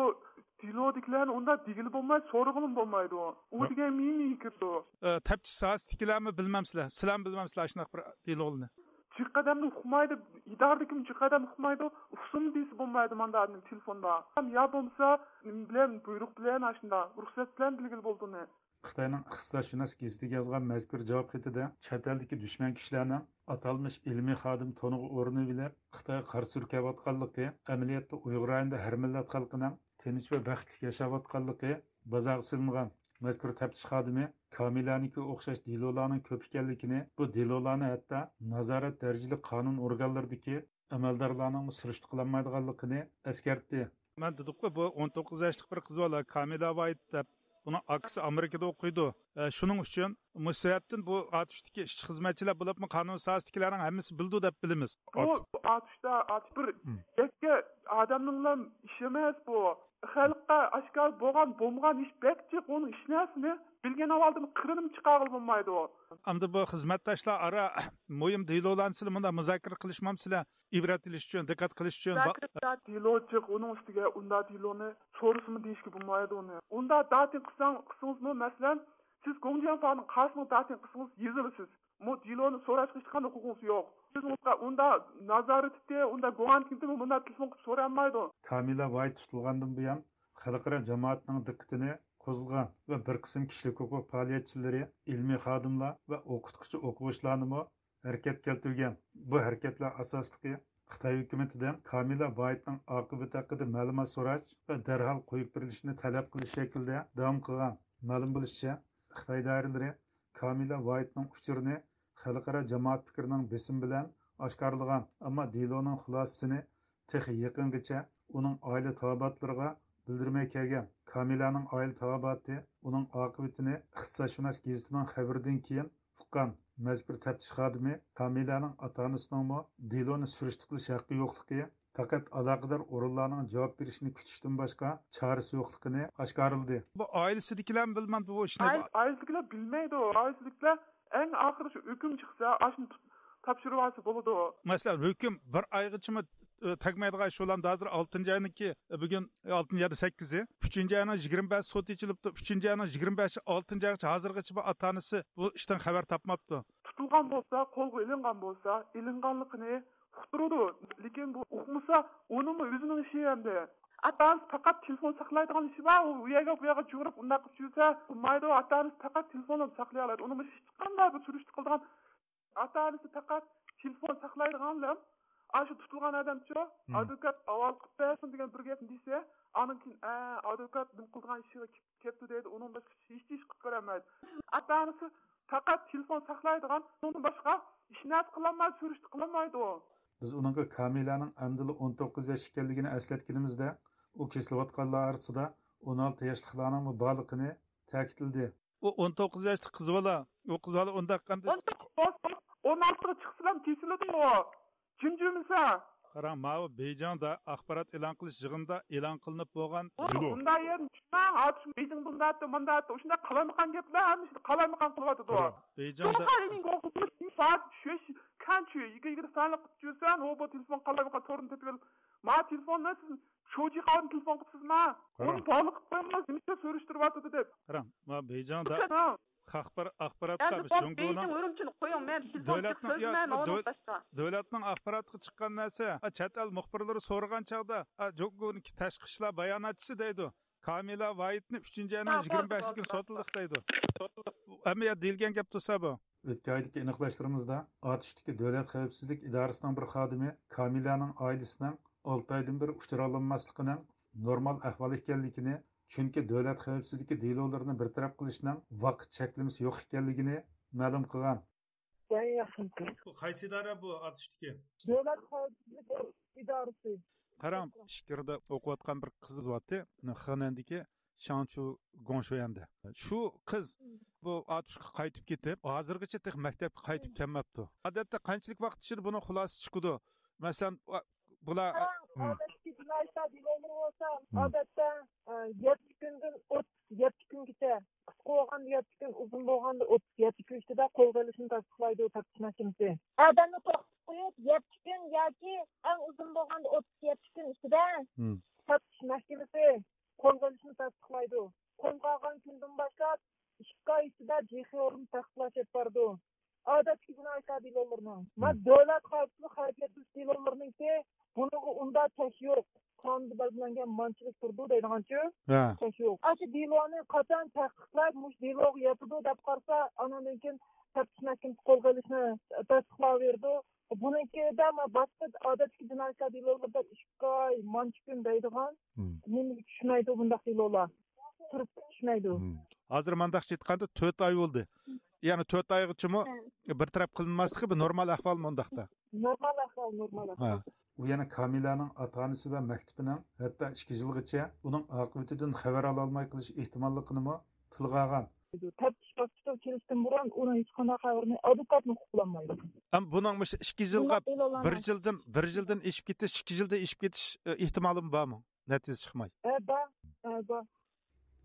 دېلودىكىلەرنى ئۇنداق دېگىلى بولمايدۇ، سورىغىلىمۇ بولمايدۇ. ئۇ دېگەن مېڭىگە كىرىدۇ. ئە، تەپتىش ساھەسىدىكىلەرمۇ بىلمەمسىلەر؟ سىلەرمۇ بىلمەمسىلەر ئاشۇنداق بىر دېلولارنى؟ جىق ئادەمنى ئۇقمايدۇ، ئىدارىدىكىمۇ جىق ئادەم ئۇقمايدۇ، ئۇقسۇن دېسە بولمايدۇ ماندا ئادەم تېلېفوندا. يا بولمىسا نېمە بىلەن، بۇيرۇق بىلەن، ئاشۇنداق رۇخسەت بىلەن بىلگىلى بولىدۇ ئۇنى. خىتاينىڭ ئىقتىسادشۇناس گېزىتىگە يازغان مەزكۇر جاۋاب خېتىدە چەت ئەلدىكى دۈشمەن كۈچلەرنىڭ ئاتالمىش ئىلمىي خادىم تونىغا ئورىنىۋېلىپ، خىتايغا قارا سۈركەۋاتقانلىقى، ئەمەلىيەتتە ئۇيغۇر رايونىدا ھەر مىللەت خەلقىنىڭ تىنچ ۋە بەختلىك ياشاۋاتقانلىقى، بازارغا سېلىنغان مەزكۇر تەپتىش خادىمى كامىلەنىڭكىگە ئوخشاش دېلولارنىڭ كۆپ ئىكەنلىكىنى، بۇ دېلولارنى ھەتتا نازارەت دەرىجىلىك قانۇن ئورگانلىرىدىكى ئەمەلدارلارنىڭمۇ سۈرۈشتە قىلالمايدىغانلىقىنى ئەسكەرتتى. مەن دېدۇققۇ، بۇ ئون توققۇز ياشلىق بىر قىز بالا، كامىلا ۋايت دەپ. بۇنىڭ ئاكىسى ئامېرىكىدا ئوقۇيدۇ. ئە، شۇنىڭ ئۈچۈن مۇشۇ سەۋەبتىن بۇ ئاتۇشتىكى ئىشچى خىزمەتچىلەر بولۇپمۇ قانۇن ساھەسىدىكىلەرنىڭ ھەممىسى بىلىدۇ دەپ بىلىمىز. بۇ ئاتۇشتا، ئاتۇش بىر يەككە ئادەمنىڭلا ئىشى ئەمەس بۇ. خەلققە ئاشكارا بولغان، بولمىغان ئىش بەك جىق، ئۇنىڭ ئىش نەرسىنى بىلگەن ئەھۋالدىن قىرىنىمۇ چىقارغىلى بولمايدۇ. ئەمدى بۇ خىزمەتداشلار ئارا مۇھىم دېلولارنى سىلەر مۇنداق مۇزاكىرە قىلىشمامسىلەر؟ ئىبرەت ئېلىش ئۈچۈن، دىققەت قىلىش ئۈچۈن. دېلو جىق، ئۇنىڭ ئۈستىگە ئۇنداق دېلونى سورىسىمۇ دېيىشكە بولمايدۇ ئۇنى. ئۇنداق داتىن قىلساڭ، قىلسىڭىزمۇ، مەسىلەن، سىز گوڭجياڭفانىڭ قاسىمىغا داتىن قىلسىڭىز يېزىلىسىز. مۇ دېلونى سوراشقا ھېچقانداق ھوقۇقىڭىز يوق. سىز ئۇنىڭغا ئۇنداق نازارەتتە، ئۇنداق گۇڭئەنكىنتىمۇ مۇنداق تېلېفون قىلىپ سورالمايدۇ. كامىلە ۋايت تۇتۇلغاندىن بۇيان، خەلقئارا جامائەتنىڭ دىققىتىنى قوزغىغان ۋە بىر قىسىم كىشىلىك ھوقۇق پائالىيەتچىلىرى، ئىلمىي خادىملار ۋە ئوقۇتقۇچى ئوقۇغۇچىلارنىمۇ ھەرىكەتكە كەلتۈرگەن. بۇ ھەرىكەتلەر ئاساسلىقى خىتاي ھۆكۈمىتىدىن كامىلە ۋايتنىڭ ئاقىۋىتى ھەققىدە مەلۇمات سوراش ۋە دەرھال قويۇپ بېرىلىشىنى تەلەپ قىلىش شەكلىدە داۋام قىلغان. مەلۇم بولۇشىچە، خىتاي دائىرىلىرى كامىلە ۋايتنىڭ ئۇچۇرىنى خەلقئارا جامائەت پىكرىنىڭ بېسىمى بىلەن ئاشكارىلىغان، ئەمما دېلونىڭ خۇلاسىسىنى تېخى يېقىنغىچە ئۇنىڭ ئائىلە تاۋابىئاتلىرىغا بىلدۈرمەي كەلگەن. كامىلەنىڭ ئائىلە تاۋابىئاتى ئۇنىڭ ئاقىۋىتىنى ئىقتىسادشۇناس گېزىتىنىڭ خەۋىرىدىن كېيىن ئۇققان. مەزكۇر تەپتىش خادىمى كامىلەنىڭ ئاتا-ئانىسىنىڭمۇ دېلونى سۈرۈشتە قىلىش ھەققى يوقلۇقى، پەقەت ئالاقىدار ئورۇنلارنىڭ جاۋاب بېرىشىنى كۈتۈشتىن باشقا چارىسى يوقلۇقىنى ئاشكارىلىدى. بۇ ئائىلىسىدىكىلەرمۇ بىلمەمدۇ بۇ ئىشنى؟ ئائىلىسىدىكىلەر بىلمەيدۇ. ئائىلىسىدىكىلەر ئەڭ ئاخىرى شۇ ھۆكۈم چىقسا، ئاشۇنى تۇت-، تاپشۇرۇۋالسا بولىدۇ. مەسىلەن، ھۆكۈم بىر ئايغىچىمۇ، ئى، تەگمەيدىغان ئىش بولامدۇ؟ ھازىر ئالتىنچى ئاينىڭكى، ئى، بۈگۈن، ئى، ئالتىنچى يادا سەككىزى. ئۈچىنچى ئاينىڭ يىگىرمە بەشى سوت ئېچىلىپتۇ. ئۈچىنچى ئاينىڭ يىگىرمە بەشى، ئالتىنچى ئايغىچە، ھازىرغىچە بۇ ئاتا-ئانىسى بۇ ئىشتىن خەۋەر تاپماپتۇ. تۇتۇلغان بولسا، قولغا ئېلىنغان بولسا، ئېلىنغانلىقىنى ئۇقتۇرىدۇ. لېكىن بۇ ئۇقمىسا، ئۇنىڭمۇ ئۆزىنىڭ ئىشى ئەمدى. ئاتا-ئانىسى پەقەت تېلېفون ساقلايدىغان ئىشى بار، ئۇ يەرگە، بۇ يەرگە جۇغۇرۇپ ئۇنداق قىلىپ يۈرسە بولمايدۇ. ئاتا-ئانىسى پەقەت تېلېفونلا ساقلىيالايدۇ. ئۇنىڭمۇ ھېچقانداق بىر سۈرۈشتە قىلىدىغان، ئاتا-ئانىسى پەقەت تېلېفون ساقلايدىغانلا، ئاشۇ تۇتۇلغان ئادەمچۇ، مم. ئادۋوكات ھاۋالە قىلىپ بەرسۇن دېگەن بىر گەپنى دېسە، ئاندىن كېيىن، ئە، ئادۋوكات نېمە قىلىدىغان ئىشىغا كېلىپ كەپتۇ دەيدۇ، ئۇنىڭ باشقا ھېچ ئىش قىلىپ بېرەلمەيدۇ. ئاتا-ئانىسى پەقەت تېلېفون ساقلايدىغان، ئۇنىڭدىن باشقا ھېچ نەرسە قىلالمايدۇ، سۈرۈشتە قىلالمايدۇ. بىز ئۇنىڭغا كامىلەنىڭ ئەمدىلا ئون توققۇز ياش ئىكەنلىكىنى ئەسلەتكىنىمىزدە، ئۇ كېسىلىۋاتقانلار ئارىسىدا ئون ئالتە ياشلىقلارنىڭمۇ بارلىقىنى تەكىتلىدى. ئۇ ئون توققۇز ياشلىق قىز بالا، ئۇ قىز بالا ئۇنداق قانداق؟ ئون توققۇز، ئون ئالتىغا چىقسىلا كېسىلىدۇ ئۇ. جىمجىمىسا. قاراڭ، ماۋۇ بېيجىڭدا ئاخبارات ئېلان قىلىش يىغىنىدا ئېلان قىلىنىپ بولغان. ئۇ دېلو. بۇنداق يەردىن چۈشمەڭ، ئاتۇش بېيجىڭ بۇنداق ئەتتى، مۇنداق ئەتتى. ئۇشۇنداق قالايمىقان گەپلەر ھەممىسىنى قالايمىقان قىلىۋاتىدۇ. قاراڭ، بېيجىڭدا. كەنچۈ، يىگىرمە، يىگىرمە سانلىق قىلىپ يۈرسەڭ، ئۇ بۇ تېلېفون قالايمىقان تورىنى تېپىۋېلىپ، ما تېلېفوننى سىز شوجى قاۋىدىن تېلېفون قىپسىزما؟ قاراڭ. ئۇنى باغلىق قىپ قويۇڭلار، نېمىشقا سۈرۈشتۈرۈۋاتىدۇ دەپ. قاراڭ، ما بېيجىڭدا. خەلقئارا ئاخباراتقا ئەمدى بولدى، جۇڭگونىڭ بېيجىڭ ئۇرۇمچىنى قويۇڭ، مەن تېلېفون دۆلەتنىڭ، سۆزلىمەيمەن، ئۇنىڭ دۆل-، باشقا. دۆلەتنىڭ ئاخباراتىغا چىققان نەرسە، ئا، چەت ئەل مۇخبىرلىرى سورىغان چاغدا، ئا، جۇڭگونىڭ تاشقى ئىشلار باياناتچىسى دەيدۇ، كامىلا ۋايتنى ئۈچىنچى ئاينىڭ ھە، يىگىرمە بەشىنچى كۈنى سوتلىدۇق دەيدۇ. ھەممە يەردە دېيىلگەن گەپ تۇرسا بۇ. ئۆتكەن ئايدىكى ئېنىقلاشلىرىمىزدا، ئاتۇشتىكى دۆلەت خەۋپسىزلىك ئىدارىسىنىڭ بىر خادىمى كامىلانىڭ ئائىلىسىنىڭ ئالتە ئايدىن بېرى ئۇچرالانماسلىقىنىڭ نورمال ئەھۋال ئىكەنلىكىنى، چۈنكى دۆلەت خەۋپسىزلىكى دېلولىرىنى بىر تەرەپ قىلىشنىڭ ۋاقىت چەكلىمىسى يوق ئىكەنلىكىنى مەلۇم قىلغان. بۇ قايسى ئىدارە بۇ ئاتۇشتىكى؟ دۆلەت خەۋپسىزلىك ئىدارىسى. قاراڭ، ئىچكىرىدە ئوقۇۋاتقان بىر قىز بارتتى، خېنەندىكى شاڭچۇ گوڭشۇيەندە. شۇ قىز بۇ ئاتۇشقا قايتىپ كېتىپ، ھازىرغىچە تېخى مەكتەپكە قايتىپ كەلمەپتۇ. ئادەتتە قانچىلىك ۋاقىت ئىچىدە بۇنىڭ خۇلاسىسى چىقىدۇ؟ مەسىلەن، بۇلار، قاراڭ، ئادەتتىكى جىنايى ئىشلار دېلولىرى بولسا، ئادەتتە، ئە، يەتتە كۈندىن ئوتتۇز يەتتە كۈنگىچە، قىسقا بولغاندا يەتتە كۈن، ئۇزۇن بولغاندا ئوتتۇز يەتتە كۈن ئىچىدە قول قويۇلۇشىنى تەستىقلايدۇ تەپتىش مەھكىمىسى. ئادەمنى توختىتىپ قويۇپ، يەتتە كۈن ياكى ئەڭ ئۇزۇن بولغاندا ئوتتۇز يەتتە كۈن ئىچىدە تەپتىش مەھكىمىسى قولغا ئېلىشنى تەستىقلايدۇ. قولغا ئالغان كۈندىن باشلاپ ئىككى ئاي ئىچىدە جىخېئورنى تەستىقلاش ئېلىپ بارىدۇ. ئادەتتىكى جىنايى ئىشلار دېلولىرىنىڭ. ما دۆلەت ئىشلەنگەن مانچىلىك تۇرىدۇ دەيدىغانچۇ. ھە. ئوخشاش يوق. ئاشۇ دېلونى قاچان تەھقىقلەپ، مۇشۇ دېلوغا ياتىدۇ دەپ قارىسا، ئانىڭدىن كېيىن تەپتىش مەھكىمىسى قولغا ئېلىشنى تەستىقلاۋېرىدۇ. بۇنىڭكىدە ما باشقا ئادەتتىكى جىنايەتلەر دېلولىرىدا ئىككى ئاي، مانچە كۈن دەيدىغان. مم. نېمىگە چۈشمەيدۇ بۇنداق دېلولار؟ تۇرۇپ چۈشمەيدۇ. مم. ھازىر مانداقچە ئېيتقاندا تۆت ئاي بولدى. يەنى تۆت ئايغىچىمۇ ھە. بىر تەرەپ قىلىنماسلىقى بىر نورمال ئەھۋالمۇ ئۇنداقتا؟ نورمال ئەھۋال، نورمال ھە. ئەھۋال. ئۇ يەنە كامىلەنىڭ ئاتا-ئانىسى ۋە مەكتىپىنىڭ ھەتتا ئىككى يىلغىچە ئۇنىڭ ئاقىۋىتىدىن خەۋەر ئالالماي قېلىش ئېھتىماللىقىنىمۇ تىلغا ئالغان. تەپتىش باسقۇچىغا كېلىشتىن بۇرۇن ئۇنىڭ ھېچقانداق خەۋىرىنى ئادۋوكاتمۇ ئۇقۇپ بولالمايدۇ. ئەم، بۇنىڭ مۇشۇ ئىككى يىلغا بۇنداق بىر دېلولارنى يىلدىن، بىر يىلدىن ئېشىپ كېتىش، ئىككى يىلدىن ئېشىپ كېتىش، ئە، ئېھتىمالىمۇ بارمۇ؟ نەتىجە چىقماي. ھە، بار. ھە، بار.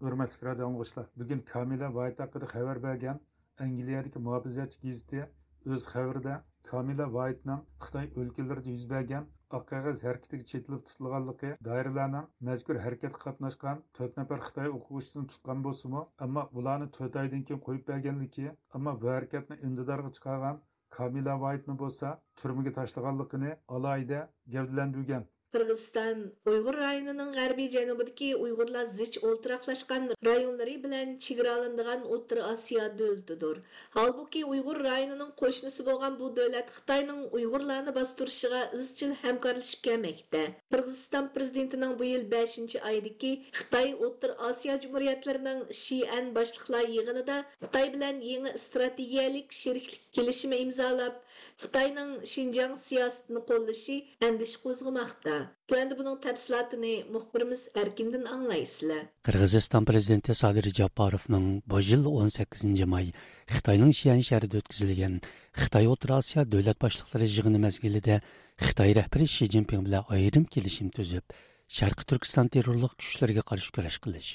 ھۆرمەتلىك رادىئو ئاڭلىغۇچىلار، بۈگۈن كامىلە ۋايىت ھەققىدە خەۋەر بەرگەن ئەنگلىيەدىكى مۇھاپىزەتچى گېزىتى ئۆز خەۋىرىدە كامىلە ۋايىتنىڭ خىتاي ئۆلكىلىرىدە يۈز بەرگەن ئاق قەغەز ھەرىكىتىگە چېتىلىپ تۇتۇلغانلىقى، دائىرىلەرنىڭ مەزكۇر ھەرىكەتكە قاتناشقان تۆت نەپەر خىتاي ئوقۇغۇچىسىنى تۇتقان بولسىمۇ، ئەمما ئۇلارنى تۆت ئايدىن كېيىن قويۇپ بەرگەنلىكى، ئەمما بۇ ھەرىكەتنى ئۈندىدارغا چىقارغان كامىلە ۋايىتنى بولسا تۈرمىگە تاشلىغانلىقىنى ئالاھىدە گەۋدىلەندۈرگەن. قىرغىزىستان ئۇيغۇر رايونىنىڭ غەربىي جەنۇبىدىكى ئۇيغۇرلار زىچ ئولتۇراقلاشقان رايونلىرى بىلەن چېگرالىنىدىغان ئوتتۇرا ئاسىيا دۆلىتىدۇر. ھالبۇكى، ئۇيغۇر رايونىنىڭ قوشنىسى بولغان بۇ دۆلەت خىتاينىڭ ئۇيغۇرلارنى باستۇرۇشىغا ئىزچىل ھەمكارلىشىپ كەلمەكتە. قىرغىزىستان پىرېزىدېنتىنىڭ بۇ يىل بەشىنچى ئايدىكى خىتاي ئوتتۇرا ئاسىيا جۇمھۇرىيەتلىرىنىڭ شىئەن باشلىقلار يىغىنىدا خىتاي بىلەن يېڭى ئىستراتېگىيەلىك شېرىكلىك كېلىشىمى ئىمزالاپ، خىتاينىڭ شىنجاڭ سىياسىتىنى قوللىشى ئەندىشە قوزغىماقتا. تۆۋەندە بۇنىڭ تەپسىلاتىنى مۇخبىرىمىز ئەركىندىن ئاڭلايسىلەر. قىرغىزىستان پىرېزىدېنتى سادىر جاپاروفنىڭ بۇ يىل ئون سەككىزىنچى ماي خىتاينىڭ شيەن شەھىرىدە ئۆتكۈزۈلگەن خىتاي ئوتتۇرا ئاسىيا دۆلەت باشلىقلىرى يىغىنى مەزگىلىدە خىتاي رەھبىرى شى جىنپىڭ بىلەن ئايرىم كېلىشىم تۈزۈپ، شەرقىي تۈركىستان تېررورلۇق كۈچلىرىگە قارشى كۈرەش قىلىش،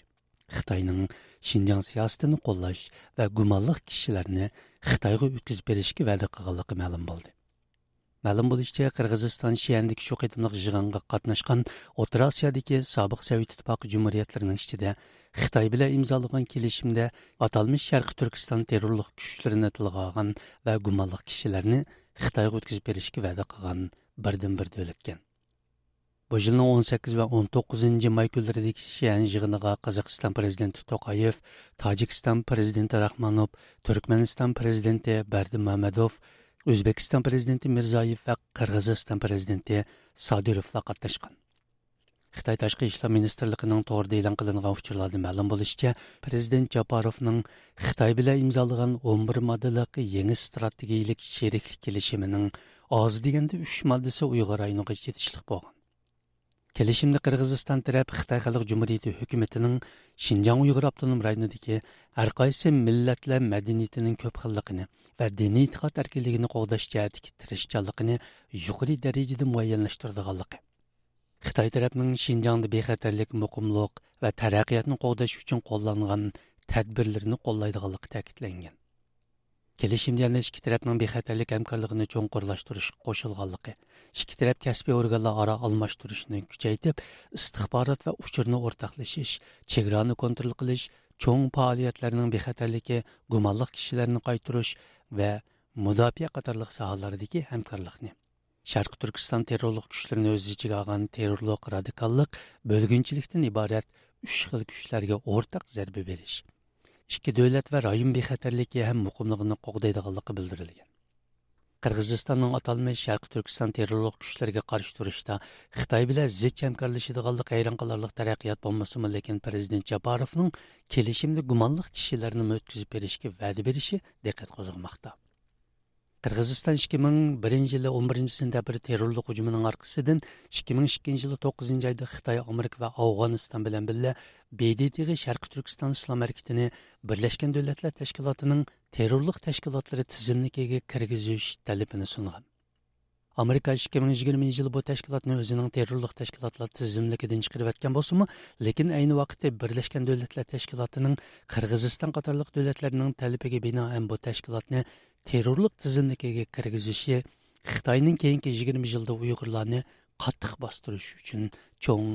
خىتاينىڭ شىنجاڭ سىياسىتىنى قوللاش ۋە گۇمانلىق كىشىلەرنى خىتايغا ئۆتكۈزۈپ بېرىشكە ۋەدە قىلغانلىقى مەلۇم بولدى. مەلۇم بولۇشىچە، قىرغىزىستان شيەندىكى شۇ قېتىملىق يىغىنغا قاتناشقان ئوتتۇرا ئاسىيادىكى سابىق سوۋېت ئىتتىپاقى جۇمھۇرىيەتلىرىنىڭ ئىچىدە خىتاي بىلەن ئىمزالىغان كېلىشىمدە ئاتالمىش شەرقىي تۈركىستان تېررورلۇق كۈچلىرىنى تىلغا ئالغان ۋە گۇمانلىق كىشىلەرنى خىتايغا ئۆتكۈزۈپ بېرىشكە ۋەدە قىلغان بىردىنبىر دۆلەتكەن. بۇ يىلنىڭ ئون سەككىز ۋە ئون توققۇزىنچى ماي كۈنلىرىدىكى شيەن يىغىنىغا قازاقىستان پىرېزىدېنتى توقايېف، تاجىكىستان پىرېزىدېنتى راخمانوف، تۈركمەنىستان پىرېزىدېنتى بەردىمامەدوف، ئۆزبېكىستان پىرېزىدېنتى مىرزىيېۋ ۋە قىرغىزىستان پىرېزىدېنتى سادىروفلار قاتناشقان. خىتاي تاشقى ئىشلار مىنىستىرلىقىنىڭ تورىدا ئېلان قىلىنغان ئۇچۇرلاردا مەلۇم بولۇشىچە، پىرېزىدېنت جاپاروفنىڭ خىتاي بىلەن ئىمزالىغان ئون بىر ماددىلىق يېڭى ئىستراتېگىيىلىك شېرىكلىك كېلىشىمىنىڭ ئاز دېگەندە ئۈچ ماددىسى ئۇيغۇر رايونىغا چېتىشلىق بولغان. كېلىشىمدە قىرغىزىستان تەرەپ خىتاي خەلق جۇمھۇرىيىتى ھۆكۈمىتىنىڭ شىنجاڭ ئۇيغۇر ئاپتونوم رايونىدىكى ھەر قايسى مىللەتلەر مەدەنىيىتىنىڭ كۆپ خىللىقىنى ۋە دىنىي ئېتىقاد ئەركىنلىكىنى قوغداش جەھەتتىكى تىرىشچانلىقىنى يۇقىرى دەرىجىدە مۇئەييەنلەشتۈرىدىغانلىقى، خىتاي تەرەپنىڭ شىنجاڭدا بىخەتەرلىك، مۇقىملىق ۋە تەرەققىياتنى قوغداش ئۈچۈن قوللانغان تەدبىرلىرىنى قوللايدىغانلىقى تەكىتلەنگەن. كېلىشىمدە يەنە ئىككى تەرەپنىڭ بىخەتەرلىك ھەمكارلىقىنى چوڭقۇرلاشتۇرۇشقا قوشۇلغانلىقى، ئىككى تەرەپ كەسپىي ئورگانلار ئارا ئالماشتۇرۇشىنى كۈچەيتىپ، ئىستىخبارات ۋە ئۇچۇرنى ئورتاقلىشىش، چېگرانى كونترول قىلىش، چوڭ پائالىيەتلەرنىڭ بىخەتەرلىكى، گۇمانلىق كىشىلەرنى قايتۇرۇش ۋە مۇداپىئە قاتارلىق ساھەلەردىكى ھەمكارلىقنى، شەرقىي تۈركىستان تېررورلۇق كۈچلىرىنى ئۆز ئىچىگە ئالغان تېررورلۇق، رادىكاللىق، بۆلگۈنچىلىكتىن ئىبارەت ئۈچ خىل كۈچلەرگە ئورتاق زەربە بېرىش، ئىككى دۆلەت ۋە رايون بىخەتەرلىكى ھەم مۇقىملىقىنى قوغدايدىغانلىقى بىلدۈرۈلگەن. قىرغىزىستاننىڭ ئاتالمىش شەرقىي تۈركىستان تېررورلۇق كۈچلىرىگە قارشى تۇرۇشتا خىتاي بىلەن زىچ ھەمكارلىشىدىغانلىقى ھەيران قالارلىق تەرەققىيات بولمىسىمۇ، لېكىن پىرېزىدېنت جاپاروفنىڭ كېلىشىمدە گۇمانلىق كىشىلەرنىمۇ ئۆتكۈزۈپ بېرىشكە ۋەدە بېرىشى دىققەت قوزغىماقتا. قىرغىزىستان ئىككى مىڭ بىرىنچى يىلى ئون بىرىنچى سېنتەبىر تېررورلۇق ھۇجۇمىنىڭ ئارقىسىدىن، ئىككى مىڭ ئىككىنچى يىلى توققۇزىنچى ئايدا خىتاي، ئامېرىكا ۋە ئافغانىستان بىلەن بىللە ب د ت غا شەرقىي تۈركىستان ئىسلام ھەرىكىتىنى بىرلەشكەن دۆلەتلەر تەشكىلاتىنىڭ تېررورلۇق تەشكىلاتلىرى تىزىملىكىگە كىرگۈزۈش تەلىپىنى سۇنغان. ئامېرىكا ئىككى مىڭ يىگىرمىنچى يىلى بۇ تەشكىلاتنى ئۆزىنىڭ تېررورلۇق تەشكىلاتلار تىزىملىكىدىن چىقىرىۋەتكەن بولسىمۇ، لېكىن ئەينى ۋاقىتتا بىرلەشكەن دۆلەتلەر تەشكىلاتىنىڭ قىرغىزىستان قاتارلىق دۆلەتلەرنىڭ تەلىپىگە بىنائەن بۇ تەشكىلاتنى تېررورلۇق تىزىملىكىگە كىرگۈزۈشى خىتاينىڭ كېيىنكى يىگىرمە يىلدا ئۇيغۇرلارنى قاتتىق باستۇرۇش ئۈچۈن چوڭ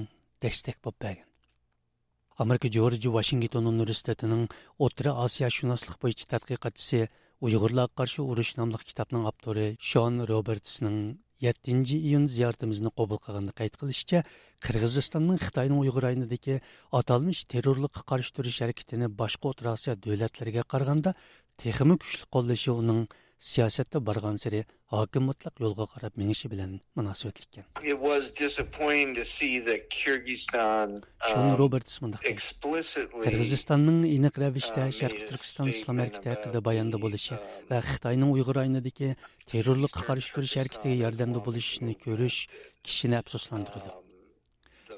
دەستەك بولۇپ بەرگەن. ئامېرىكا جورج ۋاشىنگتون ئۇنىۋېرسىتېتىنىڭ ئوتتۇرا ئاسىيا شۇناسلىق بويىچە تەتقىقاتچىسى، ئۇيغۇرلارغا قارشى ئۇرۇش ناملىق كىتابنىڭ ئاپتورى شون روبېرتسنىڭ يەتتىنچى ئىيۇن زىيارىتىمىزنى قوبۇل قىلغاندا قەيت قىلىشىچە، قىرغىزىستاننىڭ خىتاينىڭ ئۇيغۇر رايونىدىكى ئاتالمىش تېررورلۇققا قارشى تۇرۇش ھەرىكىتىنى باشقا ئوتتۇرا ئاسىيا دۆلەتلىرىگە قارىغاندا تېخىمۇ كۈچلۈك قوللىشى ئۇنىڭ سىياسەتتە بارغانسېرى ھاكىم مۇتلەق يولغا قاراپ مېڭىشى بىلەن مۇناسىۋەتلىك ئىكەن. It was disappointing to see that Kyrgyzstan, شون um, روبېرتس مۇنداق دېدى: explicitly, قىرغىزىستاننىڭ ئېنىق رەۋىشتە uh, شەرقىي made a تۈركىستان ئىسلام statement ھەرىكىتى about, ھەققىدە باياندا um, بولۇشى ۋە خىتاينىڭ ئۇيغۇر رايونىدىكى تېررورلۇققا قارشى تۇرۇش ھەرىكىتىگە ياردەمدە بولۇشىنى كۆرۈش كىشىنى ئەپسۇسلاندۇرىدۇ.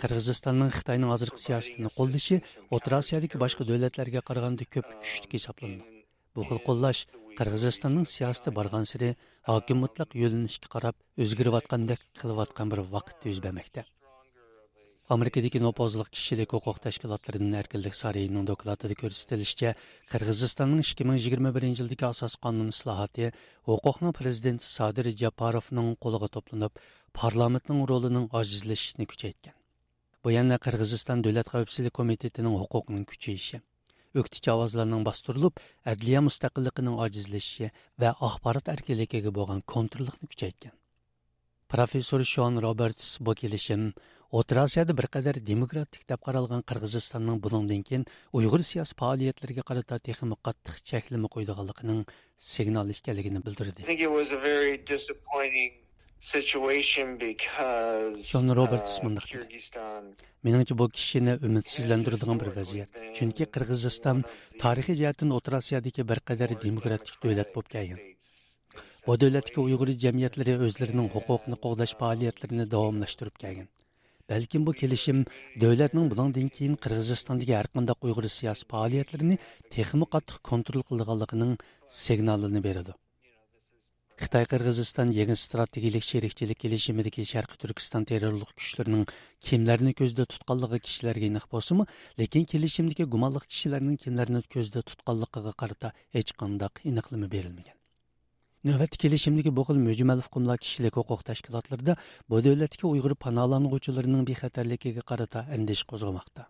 قىرغىزىستاننىڭ خىتاينىڭ ھازىرقى سىياسىتىنى قوللىشى ئوتتۇرا ئاسىيادىكى باشقا دۆلەتلەرگە قارىغاندا كۆپ كۈچلۈك ھېسابلىنىدۇ. بۇ خىل قوللاش قىرغىزىستاننىڭ سىياسىتى بارغانسېرى ھاكىم مۇتلەق يۆنىلىشكە قاراپ ئۆزگىرىۋاتقاندەك قىلىۋاتقان بىر ۋاقىتتا يۈز بەرمەكتە. ئامېرىكىدىكى نوپۇزلۇق كىشىلىك ھوقۇق تەشكىلاتلىرىدىن ئەركىنلىك سارىيىنىڭ دوكلاتىدا كۆرسىتىلىشىچە، قىرغىزىستاننىڭ ئىككى مىڭ يىگىرمە بىرىنچى يىلدىكى ئاساسىي قانۇن ئىسلاھاتى ھوقۇقنىڭ پىرېزىدېنتى سادىر جاپاروفنىڭ قولىغا توپلىنىپ، پارلامېنتنىڭ رولىنىڭ ئاجىزلىشىشىنى كۈچەيتكەن. بۇ يەنە قىرغىزىستان دۆلەت خەۋپسىزلىك كومىتېتىنىڭ ھوقۇقىنىڭ كۈچىيىشى، ئۆكتىچى ئاۋازلارنىڭ باستۇرۇلۇپ، ئەدلىيە مۇستەقىللىقىنىڭ ئاجىزلىشىشى ۋە ئاخبارات ئەركىنلىكىگە بولغان كونتروللۇقنى كۈچەيتكەن. پروفېسسور شون روبېرتس بۇ كېلىشىم ئوتتۇرا ئاسىيادا بىر قەدەر دېموكراتىك دەپ قارالغان قىرغىزىستاننىڭ بۇنىڭدىن كېيىن ئۇيغۇر سىياسىي پائالىيەتلىرىگە قارىتا تېخىمۇ قاتتىق چەكلىمە قويىدىغانلىقىنىڭ سىگنالى ئىكەنلىكىنى بىلدۈردى. I think it was a very disappointing situation because, شون روبېرتس uh, مۇنداق دېدى: Kyrgyzstan مېنىڭچە، بۇ كىشىنى ئۈمىدسىزلەندۈرىدىغان بىر ۋەزىيەت. چۈنكى قىرغىزىستان تارىخىي جەھەتتىن ئوتتۇرا ئاسىيادىكى بىر قەدەر دېموكراتىك دۆلەت بولۇپ كەلگەن. بۇ دۆلەتتىكى ئۇيغۇر جەمئىيەتلىرى ئۆزلىرىنىڭ ھوقۇقىنى قوغداش پائالىيەتلىرىنى داۋاملاشتۇرۇپ كەلگەن. بەلكىم بۇ كېلىشىم دۆلەتنىڭ بۇنىڭدىن كېيىن قىرغىزىستاندىكى ھەرقانداق ئۇيغۇر سىياسىي پائالىيەتلىرىنى تېخىمۇ قاتتىق كونترول قىلىدىغانلىقىنىڭ سىگنالىنى بېرىدۇ. خىتاي قىرغىزىستان يېڭى ئىستراتېگىيىلىك شېرىكچىلىك كېلىشىمىدىكى شەرقىي تۈركىستان تېررورلۇق كۈچلىرىنىڭ كىملەرنى كۆزدە تۇتقانلىقى كىشىلەرگە ئېنىق بولسىمۇ، لېكىن كېلىشىمدىكى گۇمانلىق كىشىلەرنىڭ كىملەرنى كۆزدە تۇتقانلىقىغا قارىتا ھېچقانداق ئېنىقلىما بېرىلمىگەن. نۆۋەتتە كېلىشىمدىكى بۇ خىل مۈجمەل ئۇقۇملار كىشىلىك ھوقۇق تەشكىلاتلىرىدا بۇ دۆلەتتىكى ئۇيغۇر پاناھلانغۇچىلىرىنىڭ بىخەتەرلىكىگە قارىتا ئەندىشە قوزغىماقتا.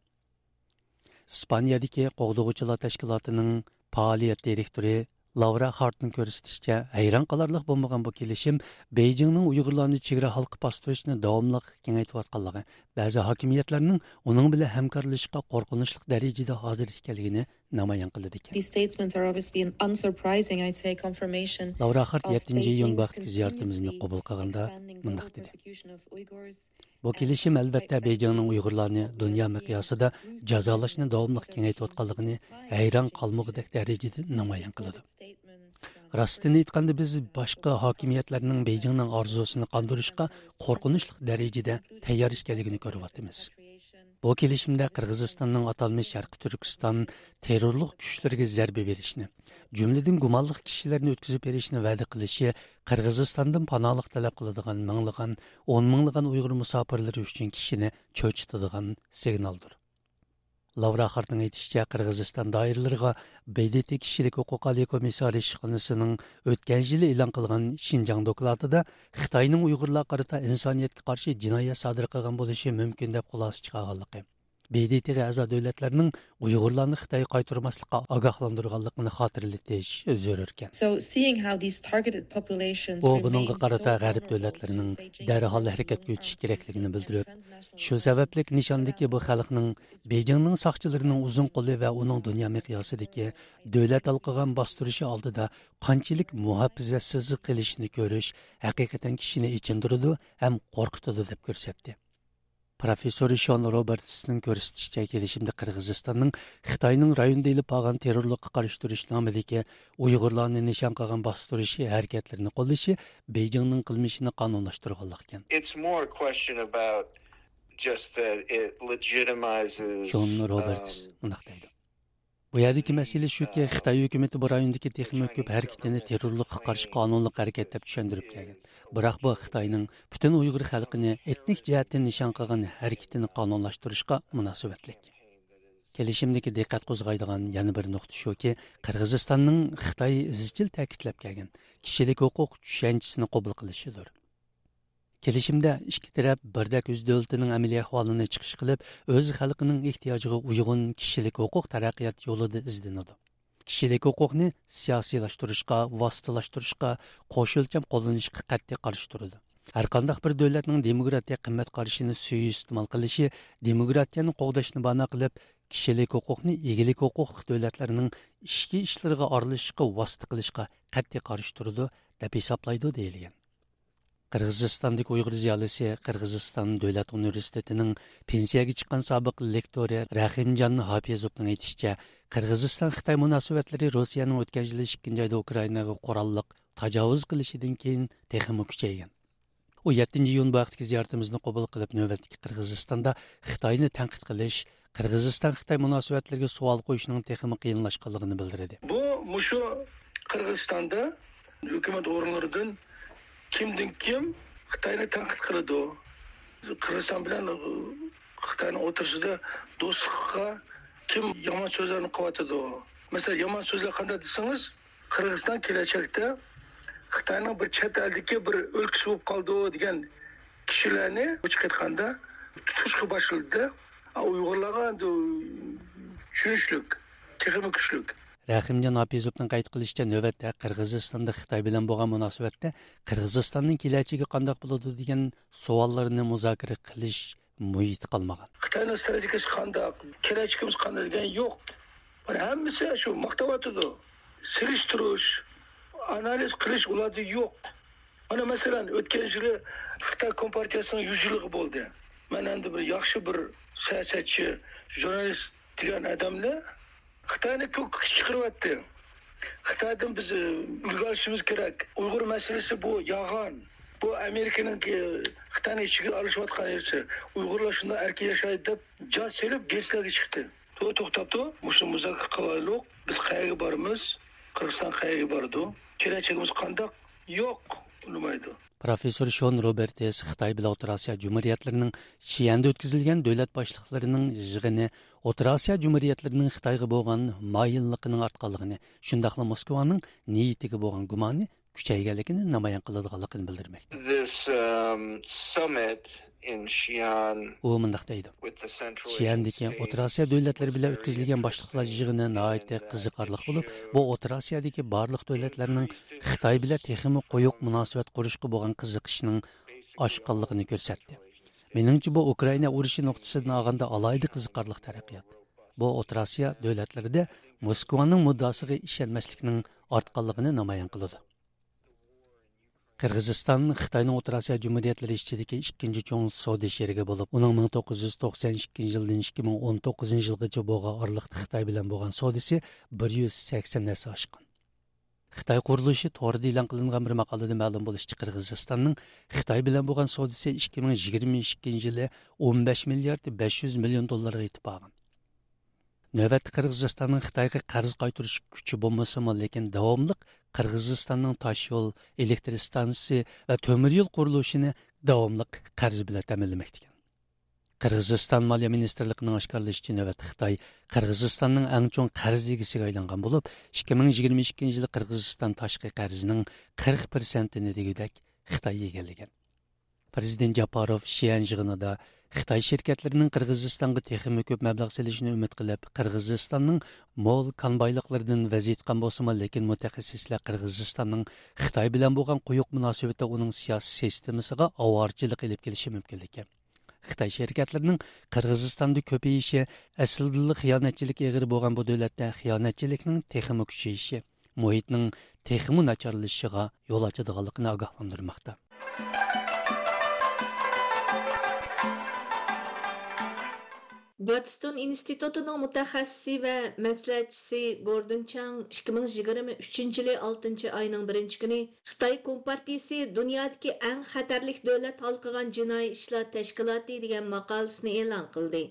ئىسپانىيەدىكى قوغدىغۇچىلار تەشكىلاتىنىڭ پائالىيەت دىرېكتورى لاۋرا خارتنىڭ كۆرسىتىشىچە، ھەيران قالارلىق بولمىغان بۇ كېلىشىم بېيجىڭنىڭ ئۇيغۇرلارنى چېگرا ھالقىپ باستۇرۇشنى داۋاملىق كېڭەيتىۋاتقانلىقى، بەزى ھاكىمىيەتلەرنىڭ ئۇنىڭ بىلەن ھەمكارلىشىشقا قورقۇنچلۇق دەرىجىدە ھازىر ئىكەنلىكىنى نامايان قىلىدىكەن. These statements are obviously an unsurprising, I'd say, confirmation لاۋرا خارت of يەتتىنچى ئىيۇن Beijing's بۇ ھەقتىكى زىيارىتىمىزنى continuously قوبۇل قىلغاندا expanding مۇنداق دېدى: persecution of Uyghurs. بۇ كېلىشىم، ئەلۋەتتە، بېيجىڭنىڭ ئۇيغۇرلارنى دۇنيا مىقياسىدا جازالاشنى داۋاملىق كېڭەيتىۋاتقانلىقىنى ھەيران قالمىغۇدەك دەرىجىدە نامايان قىلىدۇ. راستىنى ئېيتقاندا، بىز باشقا ھاكىمىيەتلەرنىڭ بېيجىڭنىڭ ئارزۇسىنى قاندۇرۇشقا قورقۇنچلۇق دەرىجىدە تەييار ئىكەنلىكىنى كۆرۈۋاتىمىز. بۇ كېلىشىمدە قىرغىزىستاننىڭ ئاتالمىش شەرقىي تۈركىستان تېررورلۇق كۈچلىرىگە زەربە بېرىشنى، جۈملىدىن گۇمانلىق كىشىلەرنى ئۆتكۈزۈپ بېرىشنى ۋەدە قىلىشى قىرغىزىستاندىن پاناھلىق تەلەپ قىلىدىغان مىڭلىغان، ئون مىڭلىغان ئۇيغۇر مۇساپىرلىرى ئۈچۈن كىشىنى چۆچۈتىدىغان سىگنالدۇر. لاۋرا خارتنىڭ ئېيتىشىچە، قىرغىزىستان دائىرىلىرىغا ب د ت كىشىلىك ھوقۇق ئالىي كومىسسارى ئىشخانىسىنىڭ ئۆتكەن يىلى ئېلان قىلغان شىنجاڭ دوكلاتىدا خىتاينىڭ ئۇيغۇرلارغا قارىتا ئىنسانىيەتكە قارشى جىنايەت سادىر قىلغان بولۇشى مۇمكىن دەپ خۇلاسە چىقارغانلىقى، ب د ت غا ئەزا دۆلەتلەرنىڭ ئۇيغۇرلارنى خىتايغا قايتۇرماسلىققا ئاگاھلاندۇرغانلىقىنى خاتىرىلىتىش زۆرۈركەن. So, seeing how these targeted populations ئۇ بۇنىڭغا قارىتا غەرب دۆلەتلىرىنىڭ دەرھال ھەرىكەتكە ئۆتۈشى كېرەكلىكىنى بىلدۈرۈپ، شۇ سەۋەبلىك نىشاندىكى بۇ خەلقنىڭ بېيجىڭنىڭ ساقچىلىرىنىڭ ئۇزۇن قولى ۋە ئۇنىڭ دۇنيا مىقياسىدىكى دۆلەت ھالقىغان باستۇرۇشى ئالدىدا قانچىلىك مۇھاپىزەتسىزلىك قىلىشىنى كۆرۈش ھەقىقەتەن كىشىنى ئېچىندۇرىدۇ ھەم قورقۇتىدۇ، دەپ كۆرسەتتى. پروفېسسور شون روبېرتسنىڭ كۆرسىتىشىچە، كېلىشىمدە قىرغىزىستاننىڭ خىتاينىڭ رايوندا ئېلىپ بارغان تېررورلۇققا قارشى تۇرۇش نامىدىكى ئۇيغۇرلارنى نىشان قىلغان باستۇرۇش ھەرىكەتلىرىنى قوللىشى بېيجىڭنىڭ قىلمىشىنى قانۇنلاشتۇرغانلىق ئىكەن. It's more a question about just that it legitimizes, شون روبېرتس um, مۇنداق دەيدۇ: بۇ يەردىكى مەسىلە شۇكى، خىتاي ھۆكۈمىتى بۇ رايوندىكى تېخىمۇ كۆپ ھەرىكىتىنى تېررورلۇققا قارشى قانۇنلۇق ھەرىكەت دەپ چۈشەندۈرۈپ كەلگەن. بىراق بۇ خىتاينىڭ پۈتۈن ئۇيغۇر خەلقىنى ئېتنىك جەھەتتىن نىشان قىلغان ھەرىكىتىنى قانۇنلاشتۇرۇشقا مۇناسىۋەتلىك. كېلىشىمدىكى دىققەت قوزغايدىغان يەنە بىر نۇقتا شۇكى، قىرغىزىستاننىڭ خىتاي ئىزچىل تەكىتلەپ كەلگەن كىشىلىك ھوقۇق چۈشەنچىسىنى قوبۇل قىلىشىدۇر. كېلىشىمدە ئىككى تەرەپ بىردەك ئۆز دۆلىتىنىڭ ئەمەلىي ئەھۋالىنى چىقىش قىلىپ، ئۆز خەلقىنىڭ ئېھتىياجىغا ئۇيغۇن كىشىلىك ھوقۇق تەرەققىيات يولىدا ئىزدىنىدۇ. كىشىلىك ھوقۇقنى سىياسىيلاشتۇرۇشقا، ۋاسىتىلاشتۇرۇشقا، قوش ئۆلچەم قوللىنىشقا قەتئىي قارشى تۇرىدۇ. ھەرقانداق بىر دۆلەتنىڭ دېموكراتىيە قىممەت قارىشىنى سۇيىئىستېمال قىلىشى دېموكراتىيەنى قوغداشنى بانا قىلىپ، كىشىلىك ھوقۇقنى ئىگىلىك ھوقۇقلۇق دۆلەتلەرنىڭ ئىچكى ئىشلىرىغا ئارىلىشىشقا ۋاسىتە قىلىشقا قەتئىي قارشى تۇرىدۇ، دەپ ھېسابلايدۇ، دېيىلگەن. قىرغىزىستاندىكى ئۇيغۇر زىيالىيسى، قىرغىزىستان دۆلەت ئۇنىۋېرسىتېتىنىڭ پېنسىيەگە چىققان سابىق لېكتورى رەھىمجان ھاپىزوۋنىڭ ئېيتىشىچە، قىرغىزىستان-خىتاي مۇناسىۋەتلىرى روسىيەنىڭ ئۆتكەن يىلى ئىككىنچى ئايدا ئۇكرائىناغا قوراللىق تاجاۋۇز قىلىشىدىن كېيىن تېخىمۇ كۈچەيگەن. ئۇ يەتتىنچى ئىيۇن بۇ ھەقتىكى زىيارىتىمىزنى قوبۇل قىلىپ، نۆۋەتتىكى قىرغىزىستاندا خىتاينى تەنقىد قىلىش، قىرغىزىستان-خىتاي مۇناسىۋەتلىرىگە سوئال قويۇشنىڭ تېخىمۇ قىيىنلاشقانلىقىنى بىلدۈردى. بۇ مۇشۇ قىرغىزىستاندا ھۆكۈمەت ئورۇنلىرىدىن كىمدىن كىم خىتاينى تەنقىد قىلىدۇ. قىرغىزىستان بىلەن خىتاينىڭ ئوتتۇرىسىدا دوستلۇققا كىم يامان سۆزلەرنى قىلىۋاتىدۇ. مەسىلەن، يامان سۆزلەر قانداق دېسىڭىز، قىرغىزىستان كېلەچەكتە خىتاينىڭ بىر چەت ئەلدىكى بىر ئۆلكىسى بولۇپ قالىدۇ دېگەن كىشىلەرنى، ئوچۇق ئېيتقاندا، تۇتۇشقا باشلىدى. ئۇيغۇرلارغا ئەمدى چۈشىنىشلىك، تېخىمۇ كۈچلۈك. رەھىمجان ھاپىزوۋنىڭ قەيت قىلىشىچە، نۆۋەتتە قىرغىزىستاندا خىتاي بىلەن بولغان مۇناسىۋەتتە قىرغىزىستاننىڭ كېلەچىكى قانداق بولىدۇ دېگەن سوئاللارنى مۇزاكىرە قىلىش مۇھىتى قالمىغان. خىتاينىڭ ستراتېگىيىسى قانداق، كېلەچىكىمىز قانداق دېگەن يوق. مانا ھەممىسى شۇ ماختاۋاتىدۇ. سېلىشتۇرۇش، ئانالىز قىلىش ئۇلاردا يوق. مانا مەسىلەن، ئۆتكەن يىلى خىتاي كومپارتىيىسىنىڭ يۈز يىللىقى بولدى. مەن ئەمدى بىر ياخشى بىر سىياسەتچى، ژۇرنالىست دېگەن ئادەمنى خىتاينى كۆككە چىقىرىۋەتتى. خىتايدىن بىز، ئە، ئۈلگە ئېلىشىمىز كېرەك. ئۇيغۇر مەسىلىسى بۇ يالغان. بۇ ئامېرىكىنىڭكى خىتاينىڭ ئىچىگە ئارىلىشىۋاتقان نەرسە. ئۇيغۇرلار شۇنداق ئەركىن ياشايدۇ دەپ جاز سېلىپ گېزىتلەرگە چىقتى. تو-، توختاپ تۇر، مۇشۇ مۇزاكىرە قىلايلۇق. بىز قەيەرگە بارىمىز؟ قىرغىزىستان قەيەرگە بارىدۇ؟ كېلەچىكىمىز قانداق؟ يوق، بولمايدۇ. پروفېسسور شون روبېرتس خىتاي بىلەن ئوتتۇرا ئاسىيا جۇمھۇرىيەتلىرىنىڭ شيەندە ئۆتكۈزۈلگەن دۆلەت باشلىقلىرىنىڭ يىغىنى ئوتتۇرا ئاسىيا جۇمھۇرىيەتلىرىنىڭ خىتايغا بولغان مايىللىقىنىڭ ئارتقانلىقىنى، شۇنداقلا موسكۋانىڭ نىيىتىگە بولغان گۇمانى كۈچەيگەنلىكىنى نامايان قىلىدىغانلىقىنى بىلدۈرمەكتە. This, um, summit in Xi'an ئۇ مۇنداق دەيدۇ: with the Central Asian شيەندىكى ئوتتۇرا ئاسىيا دۆلەتلىرى بىلەن ئۆتكۈزۈلگەن باشلىقلار يىغىنى ناھايىتى قىزىقارلىق بولۇپ، بۇ ئوتتۇرا ئاسىيادىكى بارلىق دۆلەتلەرنىڭ خىتاي بىلەن تېخىمۇ قويۇق مۇناسىۋەت قۇرۇشقا بولغان قىزىقىشىنىڭ ئاشقانلىقىنى كۆرسەتتى. مېنىڭچە، بۇ ئۇكرائىنا ئۇرۇشى نۇقتىسىدىن ئالغاندا ئالاھىدە قىزىقارلىق تەرەققىيات. بۇ ئوتتۇرا ئاسىيا دۆلەتلىرىدە موسكۋانىڭ مۇددىئاسىغا ئىشەنمەسلىكنىڭ ئارتقانلىقىنى نامايان قىلىدۇ. قىرغىزىستان خىتاينىڭ ئوتتۇرا ئاسىيا جۇمھۇرىيەتلىرى ئىچىدىكى ئىككىنچى چوڭ سودا شېرىكى بولۇپ، ئۇنىڭ مىڭ توققۇز يۈز توقسەن ئىككىنچى يىلدىن ئىككى مىڭ ئون توققۇزىنچى يىلغىچە بولغان ئارىلىقتا خىتاي بىلەن بولغان سودىسى بىر يۈز سەكسەن ھەسسە ئاشقان. خىتاي قۇرۇلۇشى تورىدا ئېلان قىلىنغان بىر ماقالىدە مەلۇم بولۇشىچە، قىرغىزىستاننىڭ خىتاي بىلەن بولغان سودىسى ئىككى مىڭ يىگىرمە ئىككىنچى يىلى ئون بەش مىليارد بەش يۈز مىليون دوللارغا يېتىپ بارغان. نۆۋەتتە قىرغىزىستاننىڭ خىتايغا قەرز قايتۇرۇش كۈچى بولمىسىمۇ، لېكىن داۋاملىق قىرغىزىستاننىڭ تاشيول، ئېلېكتر ئىستانسىسى ۋە تۆمۈر يول قۇرۇلۇشىنى داۋاملىق قەرز بىلەن تەمىنلىمەكتىكەن. قىرغىزىستان مالىيە مىنىستىرلىقىنىڭ ئاشكارىلىشىچە، نۆۋەتتە خىتاي قىرغىزىستاننىڭ ئەڭ چوڭ قەرز ئىگىسىگە ئايلانغان بولۇپ، ئىككى مىڭ يىگىرمە ئىككىنچى يىلى قىرغىزىستان تاشقى قەرزىنىڭ قىرىق پىرسەنتىنى دېگۈدەك خىتاي ئىگىلىگەن. پىرېزىدېنت جاپاروف شيەن يىغىنىدا خىتاي شىركەتلىرىنىڭ قىرغىزىستانغا تېخىمۇ كۆپ مەبلەغ سېلىشىنى ئۈمىد قىلىپ، قىرغىزىستاننىڭ مول كان بايلىقلىرىدىن ۋەز يېتىققان بولسىمۇ، لېكىن مۇتەخەسسىسلەر قىرغىزىستاننىڭ خىتاي بىلەن بولغان قويۇق مۇناسىۋىتى ئۇنىڭ سىياسىي سىستېمىسىغا ئاۋارىچىلىق ئېلىپ كېلىشى مۇمكىنلىكى، خىتاي شىركەتلىرىنىڭ قىرغىزىستاندا كۆپىيىشى ئەسلىدىلا خىيانەتچىلىك ئېغىرى بولغان بۇ دۆلەتتە خىيانەتچىلىكنىڭ تېخىمۇ كۈچىيىشى، مۇھىتنىڭ تېخىمۇ ناچارلىشىشىغا يول ئاچىدىغانلىقىنى ئاگاھلاندۇرماقتا. باتستون ئىنستىتۇتىنىڭ مۇتەخەسسىسى ۋە مەسلىھەتچىسى گوردون چاڭ ئىككى مىڭ يىگىرمە ئۈچىنچى يىلى ئالتىنچى ئاينىڭ بىرىنچى كۈنى خىتاي كومپارتىيىسى دۇنيادىكى ئەڭ خەتەرلىك دۆلەت ھالقىغان جىنايى ئىشلار تەشكىلاتى دېگەن ماقالىسىنى ئېلان قىلدى.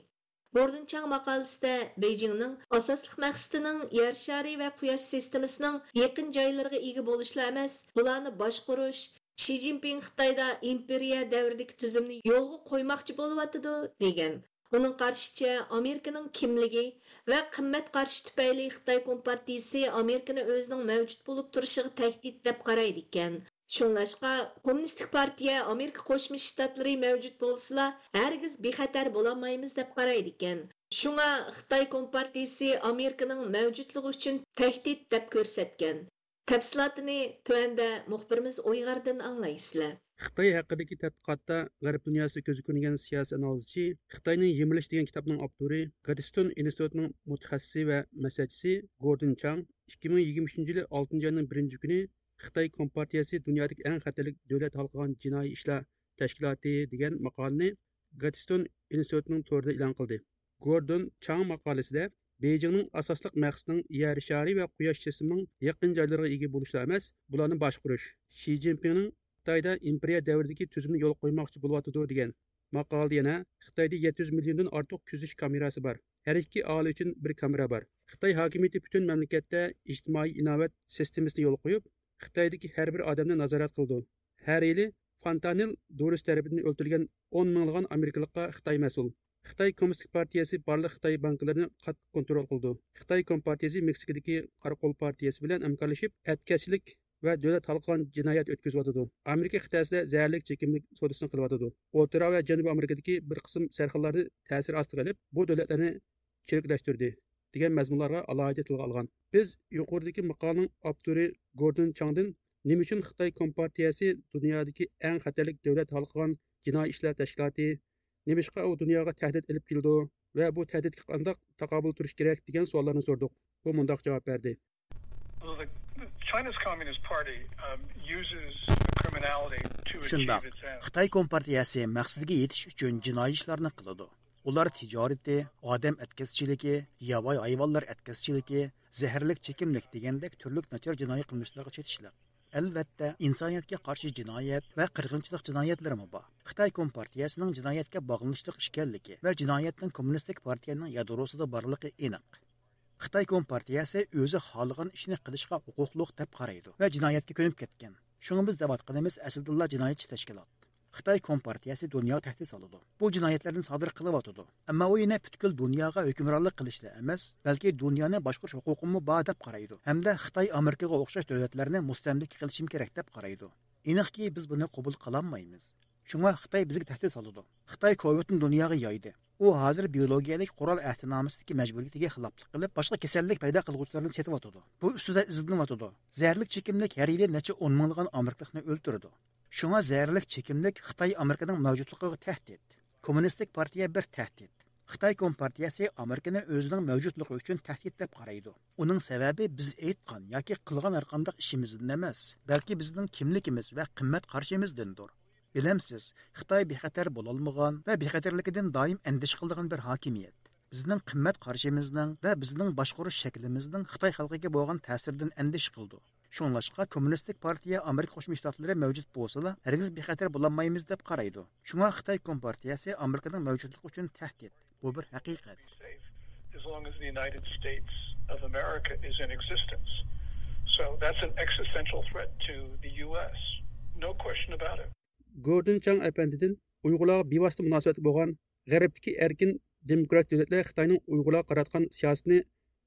گوردون چاڭ ماقالىسىدە بېيجىڭنىڭ ئاساسلىق مەقسىتىنىڭ يەر شارى ۋە قۇياش سىستېمىسىنىڭ يېقىن جايلىرىغا ئىگە بولۇشلا ئەمەس، بۇلارنى باشقۇرۇش، شى جىنپىڭ خىتايدا ئىمپېرىيە دەۋرىدىكى تۈزۈمنى يولغا قويماقچى بولۇۋاتىدۇ، دېگەن. ئۇنىڭ قارىشىچە، ئامېرىكىنىڭ كىملىكى ۋە قىممەت قارىشى تۈپەيلى خىتاي كومپارتىيىسى ئامېرىكىنى ئۆزىنىڭ مەۋجۇت بولۇپ تۇرۇشىغا تەھدىت دەپ قارايدىكەن. شۇڭلاشقا، كوممۇنىستىك پارتىيە ئامېرىكا قوشما شتاتلىرى مەۋجۇت بولسىلا، ھەرگىز بىخەتەر بولالمايمىز دەپ قارايدىكەن. شۇڭا خىتاي كومپارتىيىسى ئامېرىكىنىڭ مەۋجۇتلۇقى ئۈچۈن تەھدىت دەپ كۆرسەتكەن. تەپسىلاتىنى تۆۋەندە مۇخبىرىمىز ئويغاردىن ئاڭلايسىلەر. خىتاي ھەققىدىكى تەتقىقاتتا غەرب دۇنياسىدا كۆزگە كۆرۈنگەن سىياسىي ئانالىزچى، خىتاينى يېمىرىش دېگەن كىتابنىڭ ئاپتورى، گادستون ئىنستىتۇتىنىڭ مۇتەخەسسىسى ۋە مەسلىھەتچىسى گوردون چاڭ ئىككى مىڭ يىگىرمە ئۈچىنچى يىلى ئالتىنچى ئاينىڭ بىرىنچى كۈنى خىتاي كومپارتىيەسى دۇنيادىكى ئەڭ خەتەرلىك دۆلەت ھالقىغان جىنايى ئىشلار تەشكىلاتى دېگەن ماقالىنى گادستون ئىنستىتۇتىنىڭ تورىدا ئېلان قىلدى. گوردون چاڭ ماقالىسىدە بېيجىڭنىڭ ئاساسلىق مەقسىتىنىڭ يەر شارى ۋە قۇياش جىسمىنىڭ يېقىن جايلىرىغا ئىگە بولۇشلا ئەمەس، بۇلارنى باشقۇرۇش، شى جىنپىڭنىڭ خىتايدا ئىمپېرىيە دەۋرىدىكى تۈزۈمنى يولغا قويماقچى بولۇۋاتىدۇ، دېگەن. ماقالىدە يەنە خىتايدا يەتتە يۈز مىليوندىن ئارتۇق كۆزىتىش كامېراسى بار. ھەر ئىككى ئاھالە ئۈچۈن بىر كامېرا بار. خىتاي ھاكىمىيىتى پۈتۈن مەملىكەتتە ئىجتىمائىي ئىناۋەت سىستېمىسىنى يولغا قويۇپ، خىتايدىكى ھەر بىر ئادەمنى نازارەت قىلىدۇ. ھەر يىلى فانتانىل دورىسى تەرىپىدىن ئۆلتۈرۈلگەن ئون مىڭلىغان ئامېرىكىلىققا خىتاي مەسئۇل. خىتاي كوممۇنىستىك پارتىيەسى بارلىق خىتاي بانكىلىرىنى قاتتىق كونترول قىلىدۇ. خىتاي كومپارتىيەسى مېكسىكىدىكى قاراقول پارتىيەسى بىلەن ھەمكارلىشىپ، ئەتكەسچىلىك ۋە دۆلەت ھالقىغان جىنايەت ئۆتكۈزۈۋاتىدۇ. ئامېرىكا قىتئەسىدە زەھەرلىك چېكىملىك سودىسىنى قىلىۋاتىدۇ. ئوتتۇرا ۋە جەنۇبىي ئامېرىكىدىكى بىر قىسىم سەرخىللارنى تەسىر ئاستىغا ئېلىپ، بۇ دۆلەتلەرنى چىرىكلەشتۈردى، دېگەن مەزمۇنلارغا ئالاھىدە تىلغا ئالغان. بىز يۇقىرىدىكى ماقالىنىڭ ئاپتورى گوردون چاڭدىن نېمە ئۈچۈن خىتاي كومپارتىيەسى دۇنيادىكى ئەڭ خەتەرلىك دۆلەت ھالقىغان جىنايى ئىشلار تەشكىلاتى، نېمىشقا ئۇ دۇنياغا تەھدىت ئېلىپ كېلىدۇ ۋە بۇ تەھدىتكە قانداق تاقابىل تۇرۇش كېرەك، دېگەن سوئاللارنى سوردۇق. ئۇ مۇنداق جاۋاب بەردى. Well, the, the China's Communist Party, um, uses criminality to achieve شۇنداق. Its ends. خىتاي كومپارتىيەسى مەقسىتىگە يېتىش ئۈچۈن جىنايى ئىشلارنى قىلىدۇ. ئۇلار تىجارىتى، ئادەم ئەتكەسچىلىكى، ياۋايى ھايۋانلار ئەتكەسچىلىكى، زەھەرلىك چېكىملىك دېگەندەك تۈرلۈك ناچار جىنايى قىلمىشلارغا چېتىشلىق. ئەلۋەتتە، ئىنسانىيەتكە قارشى جىنايەت ۋە قىرغىنچىلىق جىنايەتلىرىمۇ بار. خىتاي كومپارتىيەسىنىڭ جىنايەتكە باغلىنىشلىق ئىكەنلىكى ۋە جىنايەتنىڭ كوممۇنىستىك پارتىيەنىڭ يادروسىدا بارلىقى ئېنىق. خىتاي كومپارتىيەسى ئۆزى خالىغان ئىشنى قىلىشقا ھوقۇقلۇق دەپ قارايدۇ ۋە جىنايەتكە كۆنۈپ كەتكەن. شۇڭا بىز دەۋاتقىنىمىز ئەسلىدىنلا جىنايەتچى تەشكىلات. خىتاي كومپارتىيەسى دۇنياغا تەھدىت سالىدۇ. بۇ جىنايەتلەرنى سادىر قىلىۋاتىدۇ. ئەمما ئۇ يەنە پۈتكۈل دۇنياغا ھۆكۈمرانلىق قىلىشلا ئەمەس، بەلكى دۇنيانى باشقۇرۇش ھوقۇقىمۇ بار دەپ قارايدۇ ھەمدە خىتاي ئامېرىكىغا ئوخشاش دۆلەتلەرنى مۇستەملىكە قىلىشىمۇ كېرەك دەپ قارايدۇ. ئېنىقكى، بىز بۇنى قوبۇل قىلالمايمىز. شۇڭا خىتاي بىزگە تەھدىت سالىدۇ. خىتاي كوۋىدنى دۇنياغا يايدى. ئۇ ھازىر بىيولوگىيەلىك قورال ئەھدىنامىسىدىكى مەجبۇرىيىتىگە خىلاپلىق قىلىپ، باشقا كېسەللىك پەيدا قىلغۇچىلارنى سېتىۋاتىدۇ. بۇ ئۈستىدە ئىزدىنىۋاتىدۇ. زەھەرلىك چېكىملىك ھەر يىلى نەچچە ئون مىڭلىغان ئامېرىكىلىقنى ئۆلتۈرىدۇ. شۇڭا زەھەرلىك چېكىملىك خىتاي ئامېرىكىنىڭ مەۋجۇتلۇقىغا تەھدىت. كوممۇنىستىك پارتىيە بىر تەھدىت. خىتاي كومپارتىيەسى ئامېرىكىنى ئۆزىنىڭ مەۋجۇتلۇقى ئۈچۈن تەھدىت دەپ قارايدۇ. ئۇنىڭ سەۋەبى بىز ئېيتقان ياكى قىلغان ھەرقانداق ئىشىمىزدىن ئەمەس، بەلكى بىزنىڭ كىملىكىمىز ۋە قىممەت قارىشىمىزدىندۇر. بىلەمسىز، خىتاي بىخەتەر بولالمىغان ۋە بىخەتەرلىكىدىن دائىم ئەندىشە قىلىدىغان بىر ھاكىمىيەت. بىزنىڭ قىممەت قارىشىمىزنىڭ ۋە بىزنىڭ باشقۇرۇش شەكلىمىزنىڭ خىتاي خەلقىگە بولغان تەسىرىدىن ئەندىشە قىلىدۇ. شۇڭلاشقا كوممۇنىستىك پارتىيە ئامېرىكا قوشما شتاتلىرى مەۋجۇت بولسىلا، ھەرگىز بىخەتەر بولالمايمىز دەپ قارايدۇ. شۇڭا خىتاي كومپارتىيەسى ئامېرىكىنىڭ مەۋجۇتلۇقى ئۈچۈن تەھدىت. بۇ بىر ھەقىقەت. As long as the United States of America is in existence. So that's an existential threat to the U S. No question about it. گوردون چاڭ ئەپەندىدىن ئۇيغۇرلارغا بىۋاسىتە مۇناسىۋەتلىك بولغان غەربتىكى ئەركىن دېموكراتىك دۆلەتلەر خىتاينىڭ ئۇيغۇرلارغا قاراتقان سىياسىتىنى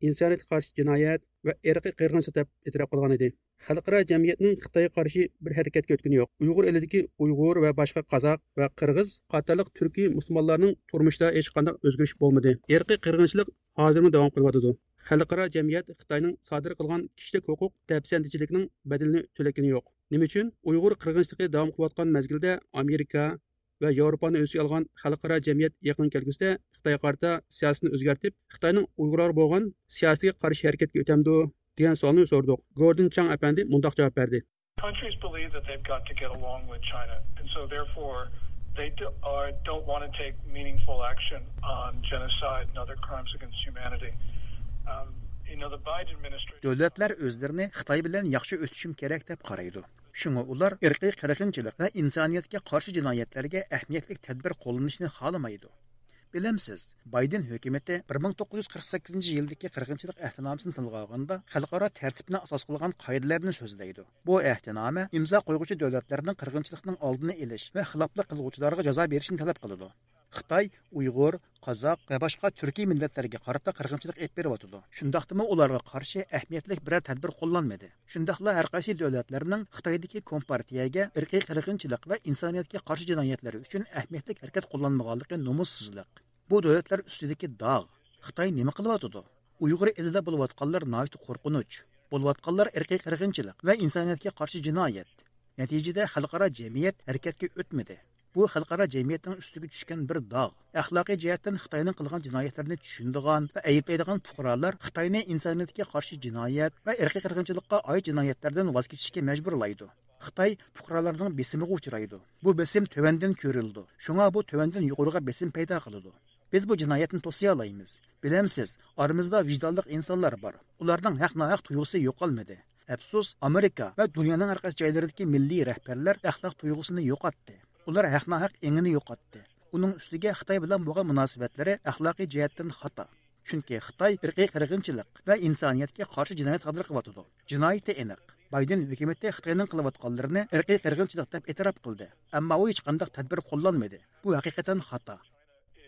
ئىنسانىيەتكە قارشى جىنايەت ۋە ئىرقىي قىرغىنچىلىق دەپ ئېتىراپ قىلغان ئىدى. خەلقئارا جەمئىيەتنىڭ خىتايغا قارشى بىر ھەرىكەتكە ئۆتكىنى يوق. ئۇيغۇر ئېلىدىكى ئۇيغۇر ۋە باشقا قازاق ۋە قىرغىز قاتارلىق تۈركىي مۇسۇلمانلارنىڭ تۇرمۇشىدا ھېچقانداق ئۆزگىرىش بولمىدى. ئىرقىي قىرغىنچىلىق ھازىرمۇ داۋام قىلىۋاتىدۇ. خەلقئارا جەمئىيەت خىتاينىڭ سادىر قىلغان كىشىلىك ھوقۇق دەپسەندىچىلىكىنىڭ بەدىلىنى تۆلەتكىنى يوق. نېمە ئۈچۈن؟ ئۇيغۇر قىرغىنچىلىقى داۋام قىلىۋاتقان مەزگىلدە ئامېرىكا ۋە ياۋروپانى ئۆز ئىچىگە ئالغان خەلقئارا جەمئىيەت يېقىن كەلگۈسىدە خىتايغا قارىتا سىياسىتىنى ئۆزگەرتىپ، خىتاينىڭ ئۇيغۇرلارغا بولغان سىياسىتىگە قارشى ھەرىكەتكە ئۆتەمدۇ؟ دېگەن سوئالنى سوردۇق. گوردون چاڭ ئەپەندى مۇنداق جاۋاب بەردى. Countries believe that they've got to get along with China, and so therefore they do, are, don't want to take meaningful action on genocide and other crimes against humanity. Um, you know, the Biden administration. دۆلەتلەر ئۆزلىرىنى خىتاي بىلەن ياخشى ئۆتۈشۈم كېرەك دەپ قارايدۇ. شۇڭا ئۇلار ئىرقىي قىرغىنچىلىق ۋە ئىنسانىيەتكە قارشى جىنايەتلەرگە ئەھمىيەتلىك تەدبىر قوللىنىشنى خالىمايدۇ. بىلەمسىز، بايدېن ھۆكۈمىتى بىر مىڭ توققۇز يۈز قىرىق سەككىزىنچى يىلدىكى قىرغىنچىلىق ئەھدىنامىسىنى تىلغا ئالغاندا، خەلقئارا تەرتىپنى ئاساس قىلغان قائىدىلەرنى سۆزلەيدۇ. بۇ ئەھدىنامە ئىمزا قويغۇچى دۆلەتلەرنىڭ قىرغىنچىلىقنىڭ ئالدىنى ئېلىش ۋە خىلاپلىق قىلغۇچىلارغا جازا بېرىشنى تەلەپ قىلىدۇ. خىتاي ئۇيغۇر، قازاق ۋە باشقا تۈركىي مىللەتلەرگە قارىتا قىرغىنچىلىق ئېلىپ بېرىۋاتىدۇ. شۇنداقتىمۇ ئۇلارغا قارشى ئەھمىيەتلىك بىرەر تەدبىر قوللانمىدى. شۇنداقلا ھەر قايسى دۆلەتلەرنىڭ خىتايدىكى كومپارتىيەگە ئىرقىي قىرغىنچىلىق ۋە ئىنسانىيەتكە قارشى جىنايەتلىرى ئۈچۈن ئەھمىيەتلىك ھەرىكەت قوللانمىغانلىقى نومۇسسىزلىق. بۇ دۆلەتلەر ئۈستىدىكى داغ. خىتاي نېمە قىلىۋاتىدۇ؟ ئۇيغۇر ئېلىدا بولۇۋاتقانلار ناھايىتى قورقۇنچ. بولۇۋاتقانلار ئىرقىي قىرغىنچىلىق ۋە ئىنسانىيەتكە قارشى جىنايەت. نەتىجىدە خەلقئارا جەمئىيەت ھەرىكەتكە ئۆتمىدى. بۇ خەلقئارا جەمئىيەتنىڭ ئۈستىگە چۈشكەن بىر داغ. ئەخلاقىي جەھەتتىن خىتاينىڭ قىلغان جىنايەتلىرىنى چۈشىنىدىغان ۋە ئەيىبلەيدىغان پۇقرالار خىتاينى ئىنسانىيەتكە قارشى جىنايەت ۋە ئىرقىي قىرغىنچىلىققا ئائىت جىنايەتلەردىن ۋاز كېچىشكە مەجبۇرلايدۇ. خىتاي پۇقرالارنىڭ بېسىمىغا ئۇچرايدۇ. بۇ بېسىم تۆۋەندىن كۆرۈلىدۇ. شۇڭا بۇ تۆۋەندىن يۇقىرىغا بېسىم پەيدا قىلىدۇ. بىز بۇ جىنايەتنى توسىيالايمىز. بىلەمسىز، ئارىمىزدا ۋىجدانلىق ئىنسانلار بار. ئۇلارنىڭ ھەق-ناھەق تۇيغۇسى يوقالمىدى. ئەپسۇس، ئامېرىكا ۋە دۇنيانىڭ ھەر قايسى جايلىرىدىكى مىللىي رەھبەرلەر ئەخلاق تۇيغۇسىنى يوقاتتى. ئۇلار ھەق-ناھەق ئېڭىنى يوقاتتى. ئۇنىڭ ئۈستىگە خىتاي بىلەن بولغان مۇناسىۋەتلىرى ئەخلاقىي جەھەتتىن خاتا. چۈنكى خىتاي ئىرقىي قىرغىنچىلىق ۋە ئىنسانىيەتكە قارشى جىنايەت سادىر قىلىۋاتىدۇ. جىنايىتى ئېنىق. بايدېن ھۆكۈمىتى خىتاينىڭ قىلىۋاتقانلىرىنى ئىرقىي قىرغىنچىلىق دەپ ئېتىراپ قىلدى. ئەمما ئۇ ھېچقانداق تەدبىر قوللانمىدى. بۇ ھەقىقەتەن خاتا.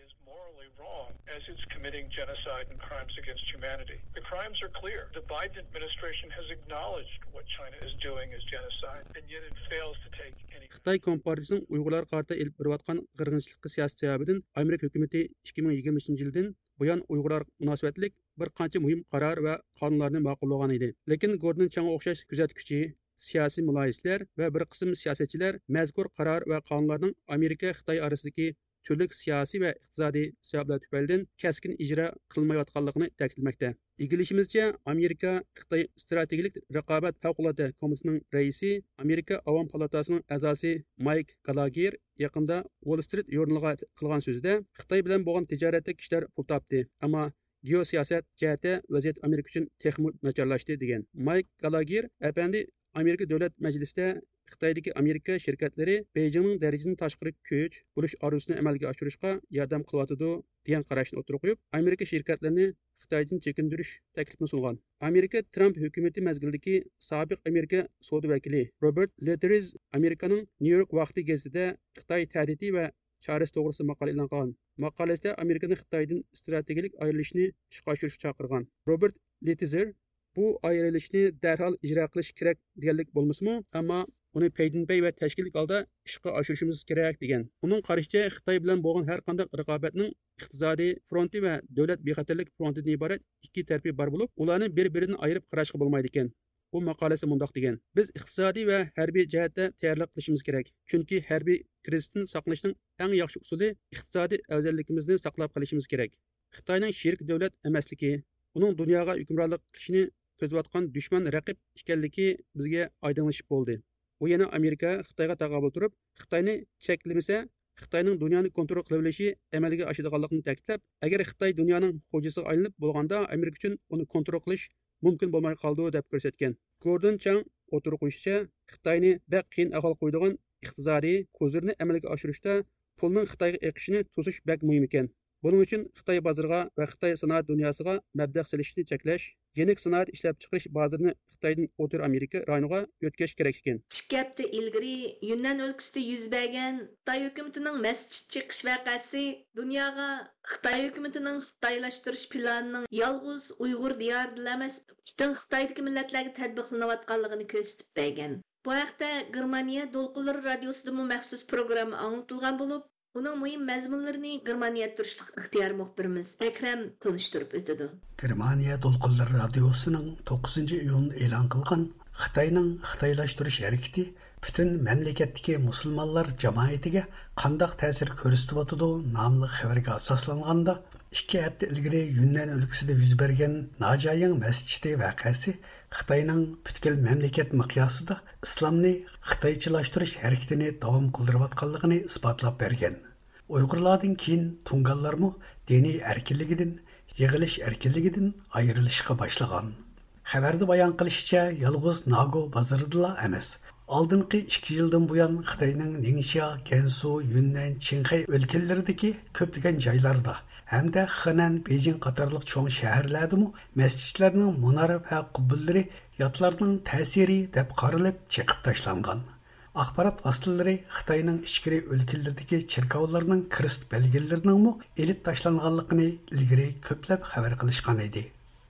Is morally wrong as it's committing genocide and crimes against humanity. The crimes are clear. The Biden administration has acknowledged what China is doing is genocide, and yet it fails to take any. خىتاي كومپارتىيىسىنىڭ ئۇيغۇرلارغا قارىتا ئېلىپ بېرىۋاتقان قىرغىنچىلىققا سىياسىتى سەۋەبىدىن ئامېرىكا ھۆكۈمىتى ئىككى مىڭ يىگىرمە ئۈچىنچى يىلدىن بۇيان ئۇيغۇرلارغا مۇناسىۋەتلىك بىر قانچە مۇھىم قارار ۋە قانۇنلارنى ماقۇللىغان ئىدى. لېكىن گوردون چاڭغا ئوخشاش كۆزەتكۈچى، سىياسىي مۇلاھىزىچىلەر ۋە بىر قىسىم سىياسەتچىلەر مەزكۇر قارار ۋە قانۇنلارنىڭ ئامېرىكا خىتاي ئارىسىدىكى تۈرلۈك سىياسىي ۋە ئىقتىسادىي سەۋەبلەر تۈپەيلىدىن كەسكىن ئىجرا قىلمايۋاتقانلىقىنى تەكىتلىمەكتە. ئىگىلىشىمىزچە، ئامېرىكا خىتاي ئىستراتېگىيىلىك رىقابەت پەۋقۇلئاددە كومىتېتىنىڭ رەئىسى، ئامېرىكا ئاۋام پالاتاسىنىڭ ئەزاسى مايك گالاگېر يېقىندا ۋول سترىت ژۇرنىلىغا قىلغان سۆزىدە، خىتاي بىلەن بولغان تىجارەتتە كىشىلەر پۇل تاپتى، ئەمما گېئوسىياسەت جەھەتتە ۋەزىيەت ئامېرىكا ئۈچۈن تېخىمۇ ناچارلاشتى، دېگەن. مايك گالاگېر ئەپەندى ئامېرىكا دۆلەت مەجلىسىدە خىتايدىكى ئامېرىكا شىركەتلىرى بېيجىڭنىڭ دەرىجىدىن تاشقىرى كۈچ بولۇش ئارزۇسىنى ئەمەلگە ئاشۇرۇشقا ياردەم قىلىۋاتىدۇ، دېگەن قاراشنى ئوتتۇرىغا قويۇپ، ئامېرىكا شىركەتلىرىنى خىتايدىن چېكىندۈرۈش تەكلىپىنى سۇنغان. ئامېرىكا ترامپ ھۆكۈمىتى مەزگىلىدىكى سابىق ئامېرىكا سودا ۋەكىلى روبېرت لېتېرىز ئامېرىكانىڭ نيۇ يورك ۋاقتى گېزىتىدە خىتاي تەھدىتى ۋە چارىسى توغرىسىدا ماقالە ئېلان قىلغان. ماقالىسىدە ئامېرىكىنى خىتايدىن ئىستراتېگىيىلىك ئايرىلىشنى ئىشقا ئاشۇرۇشقا چاقىرغان. روبېرت لېتېزېر بۇ ئايرىلىشنى دەرھال ئىجرا قىلىش كېرەك دېگەنلىك بولمىسىمۇ، ئەمما ئۇنى پەيدىنپەي ۋە تەشكىللىك ھالدا ئىشقا ئاشۇرۇشىمىز كېرەك، دېگەن. ئۇنىڭ قارىشىچە، خىتاي بىلەن بولغان ھەر قانداق رىقابەتنىڭ ئىقتىسادىي فرونتى ۋە دۆلەت بىخەتەرلىك فرونتىدىن ئىبارەت ئىككى تەرىپى بار بولۇپ، ئۇلارنى بىر-بىرىدىن ئايرىپ قاراشقا بولمايدىكەن. ئۇ ماقالىسىدە مۇنداق دېگەن: بىز ئىقتىسادىي ۋە ھەربىي جەھەتتە تەييارلىق قىلىشىمىز كېرەك، چۈنكى ھەربىي كىرىزىستىن ساقلىنىشنىڭ ئەڭ ياخشى ئۇسۇلى ئىقتىسادىي ئەۋزەللىكىمىزنى ساقلاپ قېلىشىمىز كېرەك. خىتاينىڭ شېرىك دۆلەت ئەمەسلىكى، ئۇنىڭ دۇنياغا ھۆكۈمرانلىق قىلىشىنى كۆزلەۋاتقان دۈشمەن رەقىب ئىكەنلىكى بىزگە ئايدىڭلىشىپ بولدى. ئۇ يەنە ئامېرىكا خىتايغا تاقابىل تۇرۇپ، خىتاينى چەكلىمىسە، خىتاينىڭ دۇنيانى كونترول قىلىۋېلىشى ئەمەلگە ئاشىدىغانلىقىنى تەكىتلەپ، ئەگەر خىتاي دۇنيانىڭ خوجىسىغا ئايلىنىپ بولغاندا، ئامېرىكا ئۈچۈن ئۇنى كونترول قىلىش مۇمكىن بولماي قالىدۇ، دەپ كۆرسەتكەن. گوردون چاڭ ئوتتۇرىغا قويۇشىچە، خىتاينى بەك قىيىن ئەھۋالغا قويىدىغان ئىقتىسادىي كوزىرنى ئەمەلگە ئاشۇرۇشتا پۇلنىڭ خىتايغا ئېقىشىنى توسۇش بەك مۇھىم ئىكەن. بۇنىڭ ئۈچۈن خىتاي بازىرىغا ۋە خىتاي سانائەت دۇنياسىغا مەبلەغ سېلىشنى چەكلەش، يېنىك سانائەت ئىشلەپچىقىرىش بازىرىنى خىتايدىن ئوتتۇرا ئامېرىكا رايونىغا يۆتكەش كېرەك ئىكەن. ئىككى ھەپتە ئىلگىرى يۈننەن ئۆلكىسىدە يۈز بەرگەن خىتاي ھۆكۈمىتىنىڭ مەسچىت چېقىش ۋەقەسى دۇنياغا خىتاي ھۆكۈمىتىنىڭ خىتايلاشتۇرۇش پىلانىنىڭ يالغۇز ئۇيغۇر دىيارىدىلا ئەمەس، پۈتۈن خىتايدىكى مىللەتلەرگە تەتبىقلىنىۋاتقانلىقىنى كۆرسىتىپ بەرگەن. بۇ ھەقتە گېرمانىيە دولقۇنلىرى رادىيوسىدىمۇ مەخسۇس پروگرامما ئاڭلىتىلغان بولۇپ، ئۇنىڭ مۇھىم مەزمۇنلىرىنى گېرمانىيەدە تۇرۇشلۇق ئىختىيارىي مۇخبىرىمىز ئەكرەم تونۇشتۇرۇپ ئۆتىدۇ. گېرمانىيە دولقۇنلىرى رادىيوسىنىڭ توققۇزىنچى ئىيۇن ئېلان قىلغان خىتاينىڭ خىتايلاشتۇرۇش ھەرىكىتى پۈتۈن مەملىكەتتىكى مۇسۇلمانلار جامائىتىگە قانداق تەسىر كۆرسىتىۋاتىدۇ ناملىق خەۋەرگە ئاساسلانغاندا، ئىككى ھەپتە ئىلگىرى يۈننەن ئۆلكىسىدە يۈز بەرگەن ناجايىڭ مەسچىتى ۋەقەسى خىتاينىڭ پۈتكۈل مەملىكەت مىقياسىدا ئىسلامنى خىتايچىلاشتۇرۇش ھەرىكىتىنى داۋام قىلدۇرۇۋاتقانلىقىنى ئىسپاتلاپ بەرگەن. ئۇيغۇرلاردىن كېيىن تۇڭگانلارمۇ دىنىي ئەركىنلىكىدىن، يىغىلىش ئەركىنلىكىدىن ئايرىلىشقا باشلىغان. خەۋەردە بايان قىلىشىچە، يالغۇز ناگو بازىرىدىلا ئەمەس، ئالدىنقى ئىككى يىلدىن بۇيان خىتاينىڭ نىڭشيا، گەنسۇ، يۈننەن، چىڭخەي ئۆلكىلىرىدىكى كۆپلىگەن جايلاردا ھەمدە خېنەن، بېيجىڭ قاتارلىق چوڭ شەھەرلەردىمۇ مەسچىتلەرنىڭ مۇنارە ۋە قۇببىلىرى ياتلارنىڭ تەسىرى دەپ قارىلىپ چېقىپ تاشلانغان. ئاخبارات ۋاسىتىلىرى خىتاينىڭ ئىچكىرى ئۆلكىلىرىدىكى چېركاۋلارنىڭ كرېست بەلگىلىرىنىڭمۇ ئېلىپ تاشلانغانلىقىنى ئىلگىرى كۆپلەپ خەۋەر قىلىشقان ئىدى.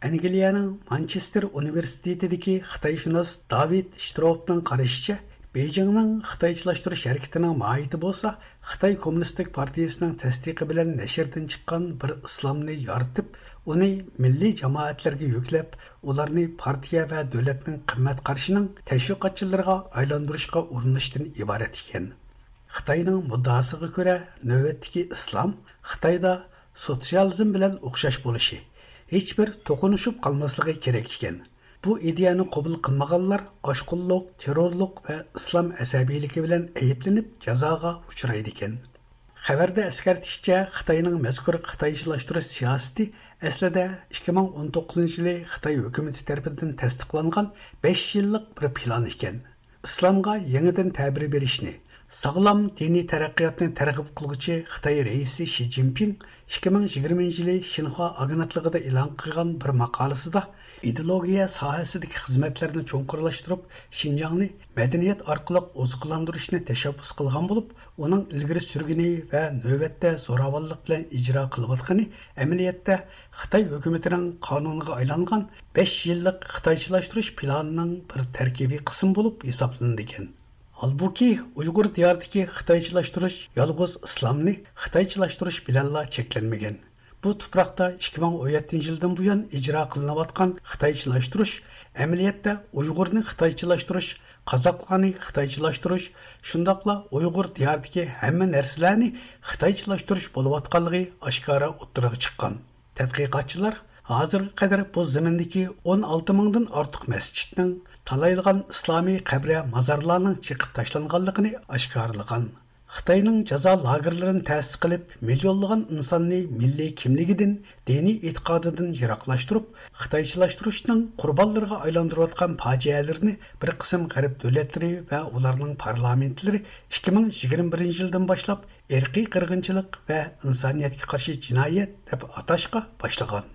ئەنگلىيەنىڭ مانچېستېر ئۇنىۋېرسىتېتىدىكى خىتايشۇناس داۋىد شتروپنىڭ قارىشىچە، بېيجىڭنىڭ خىتايچىلاشتۇرۇش ھەرىكىتىنىڭ ماھىيىتى بولسا، خىتاي كوممۇنىستىك پارتىيىسىنىڭ تەستىقى بىلەن نەشردىن چىققان بىر ئىسلامنى يارىتىپ، ئۇنى مىللىي جامائەتلەرگە يۈكلەپ، ئۇلارنى پارتىيە ۋە دۆلەتنىڭ قىممەت قارىشىنىڭ تەشۋىقاتچىلىرىغا ئايلاندۇرۇشقا ئۇرۇنۇشتىن ئىبارەت ئىكەن. خىتاينىڭ مۇددىئاسىغا كۆرە، نۆۋەتتىكى ئىسلام خىتايدا سوتسىيالىزم بىلەن ئوخشاش بولۇشى، ھېچبىر توقۇنۇشۇپ قالماسلىقى كېرەك ئىكەن. بۇ ئىدىيەنى قوبۇل قىلمىغانلار ئاشقۇنلۇق، تېررورلۇق ۋە ئىسلام ئەسەبىيلىكى بىلەن ئەيىبلىنىپ جازاغا ئۇچرايدىكەن. خەۋەردە ئەسكەرتىشىچە، خىتاينىڭ مەزكۇر خىتايچىلاشتۇرۇش سىياسىتى ئەسلىدە ئىككى مىڭ ئون توققۇزىنچى يىلى خىتاي ھۆكۈمىتى تەرىپىدىن تەستىقلانغان بەش يىللىق بىر پىلان ئىكەن. ئىسلامغا يېڭىدىن تەبىر بېرىشنى، ساغلام دىنىي تەرەققىياتنى تەرغىب قىلغۇچى خىتاي رەئىسى شى جىنپىڭ ئىككى مىڭ يىگىرمىنچى يىلى شىنخۇا ئاگېنتلىقىدا ئېلان قىلغان بىر ماقالىسىدا، ئىدېئولوگىيە ساھەسىدىكى خىزمەتلەرنى چوڭقۇرلاشتۇرۇپ، شىنجاڭنى مەدەنىيەت ئارقىلىق ئوزۇقلاندۇرۇشنى تەشەببۇس قىلغان بولۇپ، ئۇنىڭ ئىلگىرى سۈرگىنى ۋە نۆۋەتتە زوراۋانلىق بىلەن ئىجرا قىلىۋاتقىنى ئەمەلىيەتتە خىتاي ھۆكۈمىتىنىڭ قانۇنىغا ئايلانغان بەش يىللىق خىتايچىلاشتۇرۇش پىلانىنىڭ بىر تەركىبىي قىسمى بولۇپ ھېسابلىنىدىكەن. ھالبۇكى، ئۇيغۇر دىيارىدىكى خىتايچىلاشتۇرۇش يالغۇز ئىسلامنى خىتايچىلاشتۇرۇش بىلەنلا چەكلەنمىگەن. بۇ تۇپراقتا ئىككى مىڭ ئون يەتتىنچى يىلدىن بۇيان ئىجرا قىلىنىۋاتقان خىتايچىلاشتۇرۇش ئەمەلىيەتتە ئۇيغۇرنى خىتايچىلاشتۇرۇش، قازاقلارنى خىتايچىلاشتۇرۇش، شۇنداقلا ئۇيغۇر دىيارىدىكى ھەممە نەرسىلەرنى خىتايچىلاشتۇرۇش بولۇۋاتقانلىقى ئاشكارا ئوتتۇرىغا چىققان. تەتقىقاتچىلار ھازىرغا قەدەر بۇ زېمىندىكى ئون ئالتە مىڭدىن ئارتۇق مەسچىتنىڭ، تالايلىغان ئىسلامىي قەبرە مازارلارنىڭ چېقىپ تاشلانغانلىقىنى ئاشكارىلىغان. خىتاينىڭ جازا لاگېرلىرىنى تەسىس قىلىپ، مىليونلىغان ئىنساننى مىللىي كىملىكىدىن، دىنىي ئېتىقادىدىن يىراقلاشتۇرۇپ، خىتايچىلاشتۇرۇشنىڭ قۇربانلىرىغا ئايلاندۇرۇۋاتقان پاجىئەلىرىنى بىر قىسىم غەرب دۆلەتلىرى ۋە ئۇلارنىڭ پارلامېنتلىرى ئىككى مىڭ يىگىرمە بىرىنچى يىلدىن باشلاپ ئىرقىي قىرغىنچىلىق ۋە ئىنسانىيەتكە قارشى جىنايەت دەپ ئاتاشقا باشلىغان.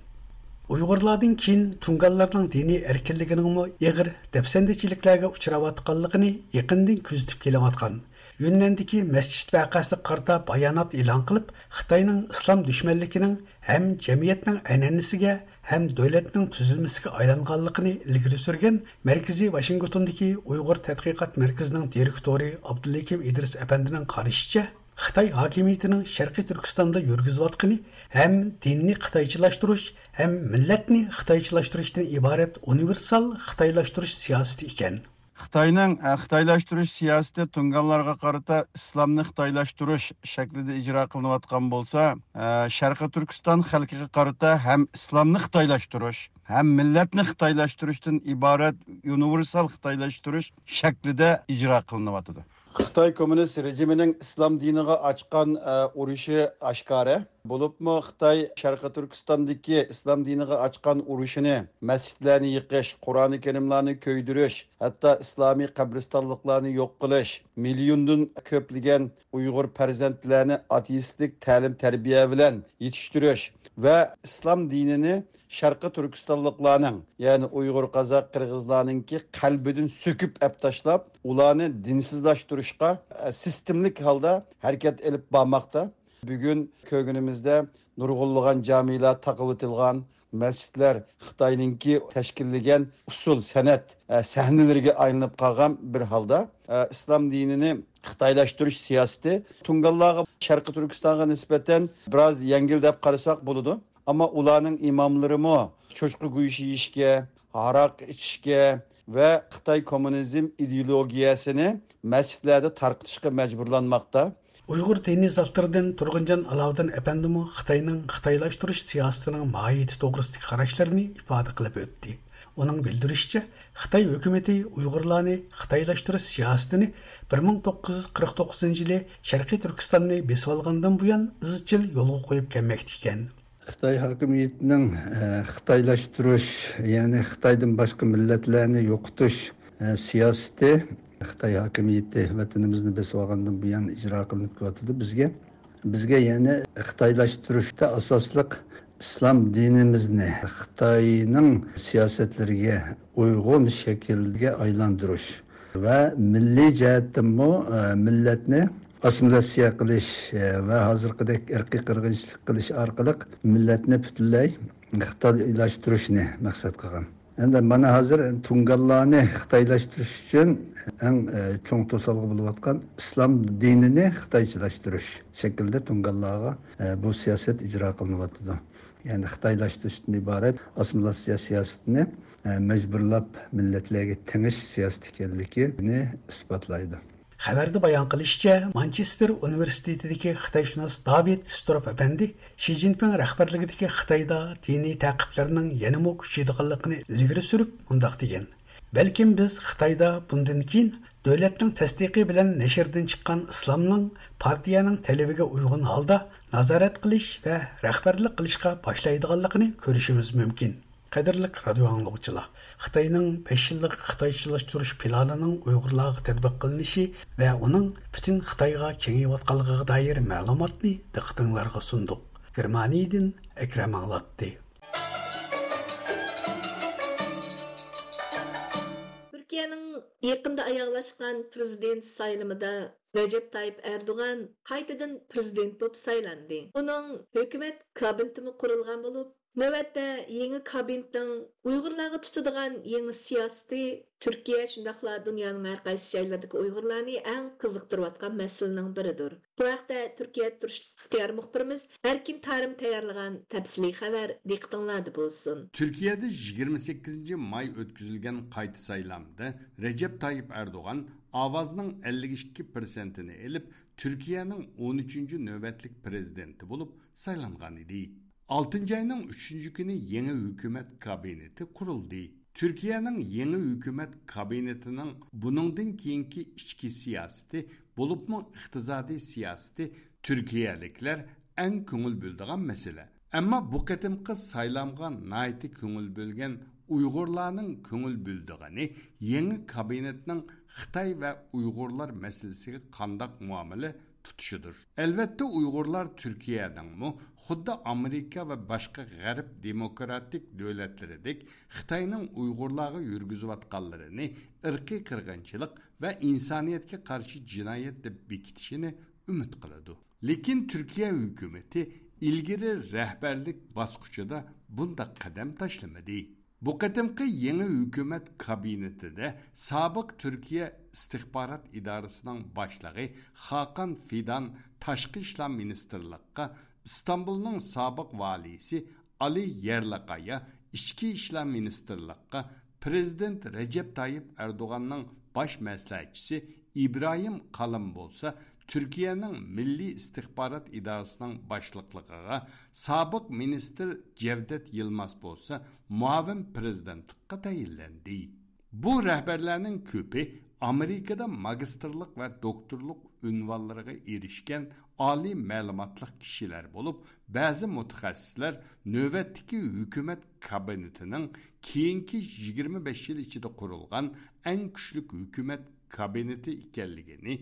ئۇيغۇرلاردىن كېيىن تۇڭگانلارنىڭ دىنىي ئەركىنلىكىنىڭمۇ ئېغىر دەپسەندىچىلىكلەرگە ئۇچراۋاتقانلىقىنى يېقىندىن كۆزىتىپ كېلىۋاتقان، يۈننەندىكى مەسچىت ۋەقەسىگە قارىتا بايانات ئېلان قىلىپ، خىتاينىڭ ئىسلام دۈشمەنلىكىنىڭ ھەم جەمئىيەتنىڭ ئەنئەنىسىگە، ھەم دۆلەتنىڭ تۈزۈلمىسىگە ئايلانغانلىقىنى ئىلگىرى سۈرگەن مەركىزى ۋاشىنگتوندىكى ئۇيغۇر تەتقىقات مەركىزىنىڭ دىرېكتورى ئابدۇلھېكىم ئىدرىس ئەپەندىنىڭ قارىشىچە، خىتاي ھاكىمىيىتىنىڭ شەرقىي تۈركىستاندا يۈرگۈزۈۋاتقىنى ھەم دىننى خىتايچىلاشتۇرۇش، ھەم مىللەتنى خىتايچىلاشتۇرۇشتىن ئىبارەت ئۇنىۋېرسال خىتايلاشتۇرۇش سىياسىتى ئىكەن. خىتاينىڭ، ئە، خىتايلاشتۇرۇش سىياسىتى تۇڭگانلارغا قارىتا ئىسلامنى خىتايلاشتۇرۇش شەكلىدە ئىجرا قىلىنىۋاتقان بولسا، ئە، شەرقىي تۈركىستان خەلقىگە قارىتا ھەم ئىسلامنى خىتايلاشتۇرۇش، ھەم مىللەتنى خىتايلاشتۇرۇشتىن ئىبارەت ئۇنىۋېرسال خىتايلاشتۇرۇش شەكلىدە ئىجرا قىلىنىۋاتىدۇ. خىتاي كوممۇنىست رېجىمىنىڭ ئىسلام دىنىغا ئاچقان، ئە، ئۇرۇشى ئاشكارا. بولۇپمۇ خىتاي شەرقىي تۈركىستاندىكى ئىسلام دىنىغا ئاچقان ئۇرۇشىنى، مەسچىتلەرنى يېقىش، قۇرئانى كەرىملارنى كۆيدۈرۈش، ھەتتا ئىسلامىي قەبرىستانلىقلارنى يوق قىلىش، مىليوندىن كۆپلىگەن ئۇيغۇر پەرزەنتلەرنى ئاتېئىستلىك تەلىم-تەربىيە بىلەن يېتىشتۈرۈش ۋە ئىسلام دىنىنى شەرقىي تۈركىستانلىقلارنىڭ، يەنى ئۇيغۇر، قازاق، قىرغىزلارنىڭكى قەلبىدىن سۆكۈپ ئەپ تاشلاپ، ئۇلارنى دىنسىزلاشتۇرۇشقا، ئە، سىستېمىلىك ھالدا ھەرىكەت ئېلىپ بارماقتا. بۈگۈن كۆرگىنىمىزدە نۇرغۇنلىغان جامىلار تاقىۋېتىلغان، مەسچىتلەر خىتاينىڭكى تەشكىللىگەن ئۇسسۇل سەنئەت، ئە، سەھنىلىرىگە ئايلىنىپ قالغان بىر ھالدا، ئە، ئىسلام دىنىنى خىتايلاشتۇرۇش سىياسىتى تۇڭگانلارغا، شەرقىي تۈركىستانغا نىسبەتەن بىراز يەڭگىل دەپ قارىساق بولىدۇ. ئەمما ئۇلارنىڭ ئىماملىرىمۇ چوشقا گۆشى يېيىشكە، ھاراق ئىچىشكە ۋە خىتاي كوممۇنىزم ئىدېئولوگىيەسىنى مەسچىتلەردە تارقىتىشقا مەجبۇرلانماقتا. ئۇيغۇر دىنىي زاتلىرىدىن تۇرغۇنجان ئالاۋۇدۇن ئەپەندىمۇ خىتاينىڭ خىتايلاشتۇرۇش سىياسىتىنىڭ ماھىيىتى توغرىسىدىكى قاراشلىرىنى ئىپادە قىلىپ ئۆتتى. ئۇنىڭ بىلدۈرۈشىچە، خىتاي ھۆكۈمىتى ئۇيغۇرلارنى خىتايلاشتۇرۇش سىياسىتىنى بىر مىڭ توققۇز يۈز قىرىق توققۇزىنچى يىلى شەرقىي تۈركىستاننى بېسىۋالغاندىن بۇيان ئىزچىل يولغا قويۇپ كەلمەكتە ئىكەن. خىتاي ھاكىمىيىتىنىڭ، ئە، خىتايلاشتۇرۇش، يەنى خىتايدىن باشقا مىللەتلەرنى يوقىتىش، ئە، سىياسىتى خىتاي ھاكىمىيىتى ۋەتىنىمىزنى بېسىۋالغاندىن بۇيان ئىجرا قىلىنىپ كېلىۋاتىدۇ. بىزگە، بىزگە يەنە خىتايلاشتۇرۇشتا ئاساسلىق ئىسلام دىنىمىزنى خىتاينىڭ سىياسەتلىرىگە ئۇيغۇن شەكىلگە ئايلاندۇرۇش ۋە مىللىي جەھەتتىنمۇ، ئە، مىللەتنى ئاسسىمىلياتسىيە قىلىش، ئە، ۋە ھازىرقىدەك ئىرقىي قىرغىنچىلىق قىلىش ئارقىلىق مىللەتنى پۈتۈنلەي خىتايلاشتۇرۇشنى مەقسەت قىلغان. ئەمدى مانا ھازىر تۇڭگانلارنى خىتايلاشتۇرۇش ئۈچۈن ئەڭ، ئە، چوڭ توسالغۇ بولۇۋاتقان ئىسلام دىنىنى خىتايچىلاشتۇرۇش شەكلىدە تۇڭگانلارغا، ئە، بۇ سىياسەت ئىجرا قىلىنىۋاتىدۇ. يەنى خىتايلاشتۇرۇشتىن ئىبارەت ئاسسىمىلياتسىيە سىياسىتىنى، ئە، مەجبۇرلاپ مىللەتلەرگە تېڭىش سىياسىتى ئىكەنلىكىنى ئىسپاتلايدۇ. خەۋەردە بايان قىلىشىچە، مانچېستېر ئۇنىۋېرسىتېتىدىكى خىتايشۇناس داۋىد ستروپ ئەپەندى شى جىنپىڭ رەھبەرلىكىدىكى خىتايدا دىنىي تەقىبلەرنىڭ يەنىمۇ كۈچىيىدىغانلىقىنى ئىلگىرى سۈرۈپ مۇنداق دېگەن: بەلكىم بىز خىتايدا بۇندىن كېيىن دۆلەتنىڭ تەستىقى بىلەن نەشردىن چىققان ئىسلامنىڭ پارتىيەنىڭ تەلىپىگە ئۇيغۇن ھالدا نازارەت قىلىش ۋە رەھبەرلىك قىلىشقا باشلايدىغانلىقىنى كۆرۈشىمىز مۇمكىن. قەدىرلىك رادىئو ئاڭلىغۇچىلار، خىتاينىڭ بەش يىللىق خىتايچىلاشتۇرۇش پىلانىنىڭ ئۇيغۇرلارغا تەتبىق قىلىنىشى ۋە ئۇنىڭ پۈتۈن خىتايغا كېڭىيىۋاتقانلىقىغا دائىر مەلۇماتنى دىققىتىڭلارغا سۇندۇق. گېرمانىيەدىن ئەكرەم ئاڭلاتتى. تۈركىيەنىڭ يېقىندا ئاياغلاشقان پرېزىدېنت سايلىمىدا رەجەپ تايىپ ئەردوغان قايتىدىن پرېزىدېنت بولۇپ سايلاندى. ئۇنىڭ ھۆكۈمەت كابىنېتىمۇ قۇرۇلغان بولۇپ، نۆۋەتتە يېڭى كابىنېتنىڭ ئۇيغۇرلارغا تۇتىدىغان يېڭى سىياسىتى تۈركىيە، شۇنداقلا دۇنيانىڭ ھەر قايسى جايلىرىدىكى ئۇيغۇرلارنى ئەڭ قىزىقتۇرۇۋاتقان مەسىلىنىڭ بىرىدۇر. بۇ ھەقتە تۈركىيەدە تۇرۇشلۇق ئىختىيارىي مۇخبىرىمىز ئەركىن تارىم تەييارلىغان تەپسىلىي خەۋەر دىققىتىڭلاردا بولسۇن. تۈركىيەدە يىگىرمە سەككىزىنچى ماي ئۆتكۈزۈلگەن قايتا سايلامدا رەجەپ تايىپ ئەردوغان ئاۋازنىڭ ئەللىك ئىككى پىرسەنتىنى ئېلىپ، تۈركىيەنىڭ ئون ئۈچىنچى نۆۋەتلىك پرېزىدېنتى بولۇپ سايلانغان ئىدى. ئالتىنچى ئاينىڭ ئۈچىنچى كۈنى يېڭى ھۆكۈمەت كابىنېتى قۇرۇلدى. تۈركىيەنىڭ يېڭى ھۆكۈمەت كابىنېتىنىڭ بۇنىڭدىن كېيىنكى ئىچكى سىياسىتى، بولۇپمۇ ئىقتىسادىي سىياسىتى تۈركىيەلىكلەر ئەڭ كۆڭۈل بۆلىدىغان مەسىلە. ئەمما بۇ قېتىمقى سايلامغا ناھايىتى كۆڭۈل بۆلگەن ئۇيغۇرلارنىڭ كۆڭۈل بۆلىدىغىنى يېڭى كابىنېتنىڭ خىتاي ۋە ئۇيغۇرلار مەسىلىسىگە قانداق مۇئامىلە تۇتۇشىدۇر. ئەلۋەتتە، ئۇيغۇرلار تۈركىيەنىڭمۇ خۇددى ئامېرىكا ۋە باشقا غەرب دېموكراتىك دۆلەتلىرىدەك خىتاينىڭ ئۇيغۇرلارغا يۈرگۈزۈۋاتقانلىرىنى ئىرقىي قىرغىنچىلىق ۋە ئىنسانىيەتكە قارشى جىنايەت دەپ بېكىتىشىنى ئۈمىد قىلىدۇ. لېكىن تۈركىيە ھۆكۈمىتى ئىلگىرى رەھبەرلىك باسقۇچىدا بۇنداق قەدەم تاشلىمىدى. بۇ قېتىمقى يېڭى ھۆكۈمەت كابىنېتىدە سابىق تۈركىيە ئىستىخبارات ئىدارىسىنىڭ باشلىقى خاقان فىدان تاشقى ئىشلار مىنىستىرلىققا، ئىستانبۇلنىڭ سابىق ۋالىيسى ئالى يەرلىقايا ئىچكى ئىشلار مىنىستىرلىققا، پرېزىدېنت رەجەپ تايىپ ئەردوغاننىڭ باش مەسلىھەتچىسى ئىبراھىم قالىن بولسا تۈركىيەنىڭ مىللىي ئىستىخبارات ئىدارىسىنىڭ باشلىقلىقىغا، سابىق مىنىستىر جەۋدەت يىلماز بولسا مۇئاۋىن پرېزىدېنتلىققا تەيىنلەندى. بۇ رەھبەرلەرنىڭ كۆپى ئامېرىكىدا ماگىستىرلىق ۋە دوكتورلۇق ئۇنۋانلىرىغا ئېرىشكەن ئالىي مەلۇماتلىق كىشىلەر بولۇپ، بەزى مۇتەخەسسىسلەر نۆۋەتتىكى ھۆكۈمەت كابىنېتىنىڭ كېيىنكى يىگىرمە بەش يىل ئىچىدە قۇرۇلغان ئەڭ كۈچلۈك ھۆكۈمەت كابىنېتى ئىكەنلىكىنى،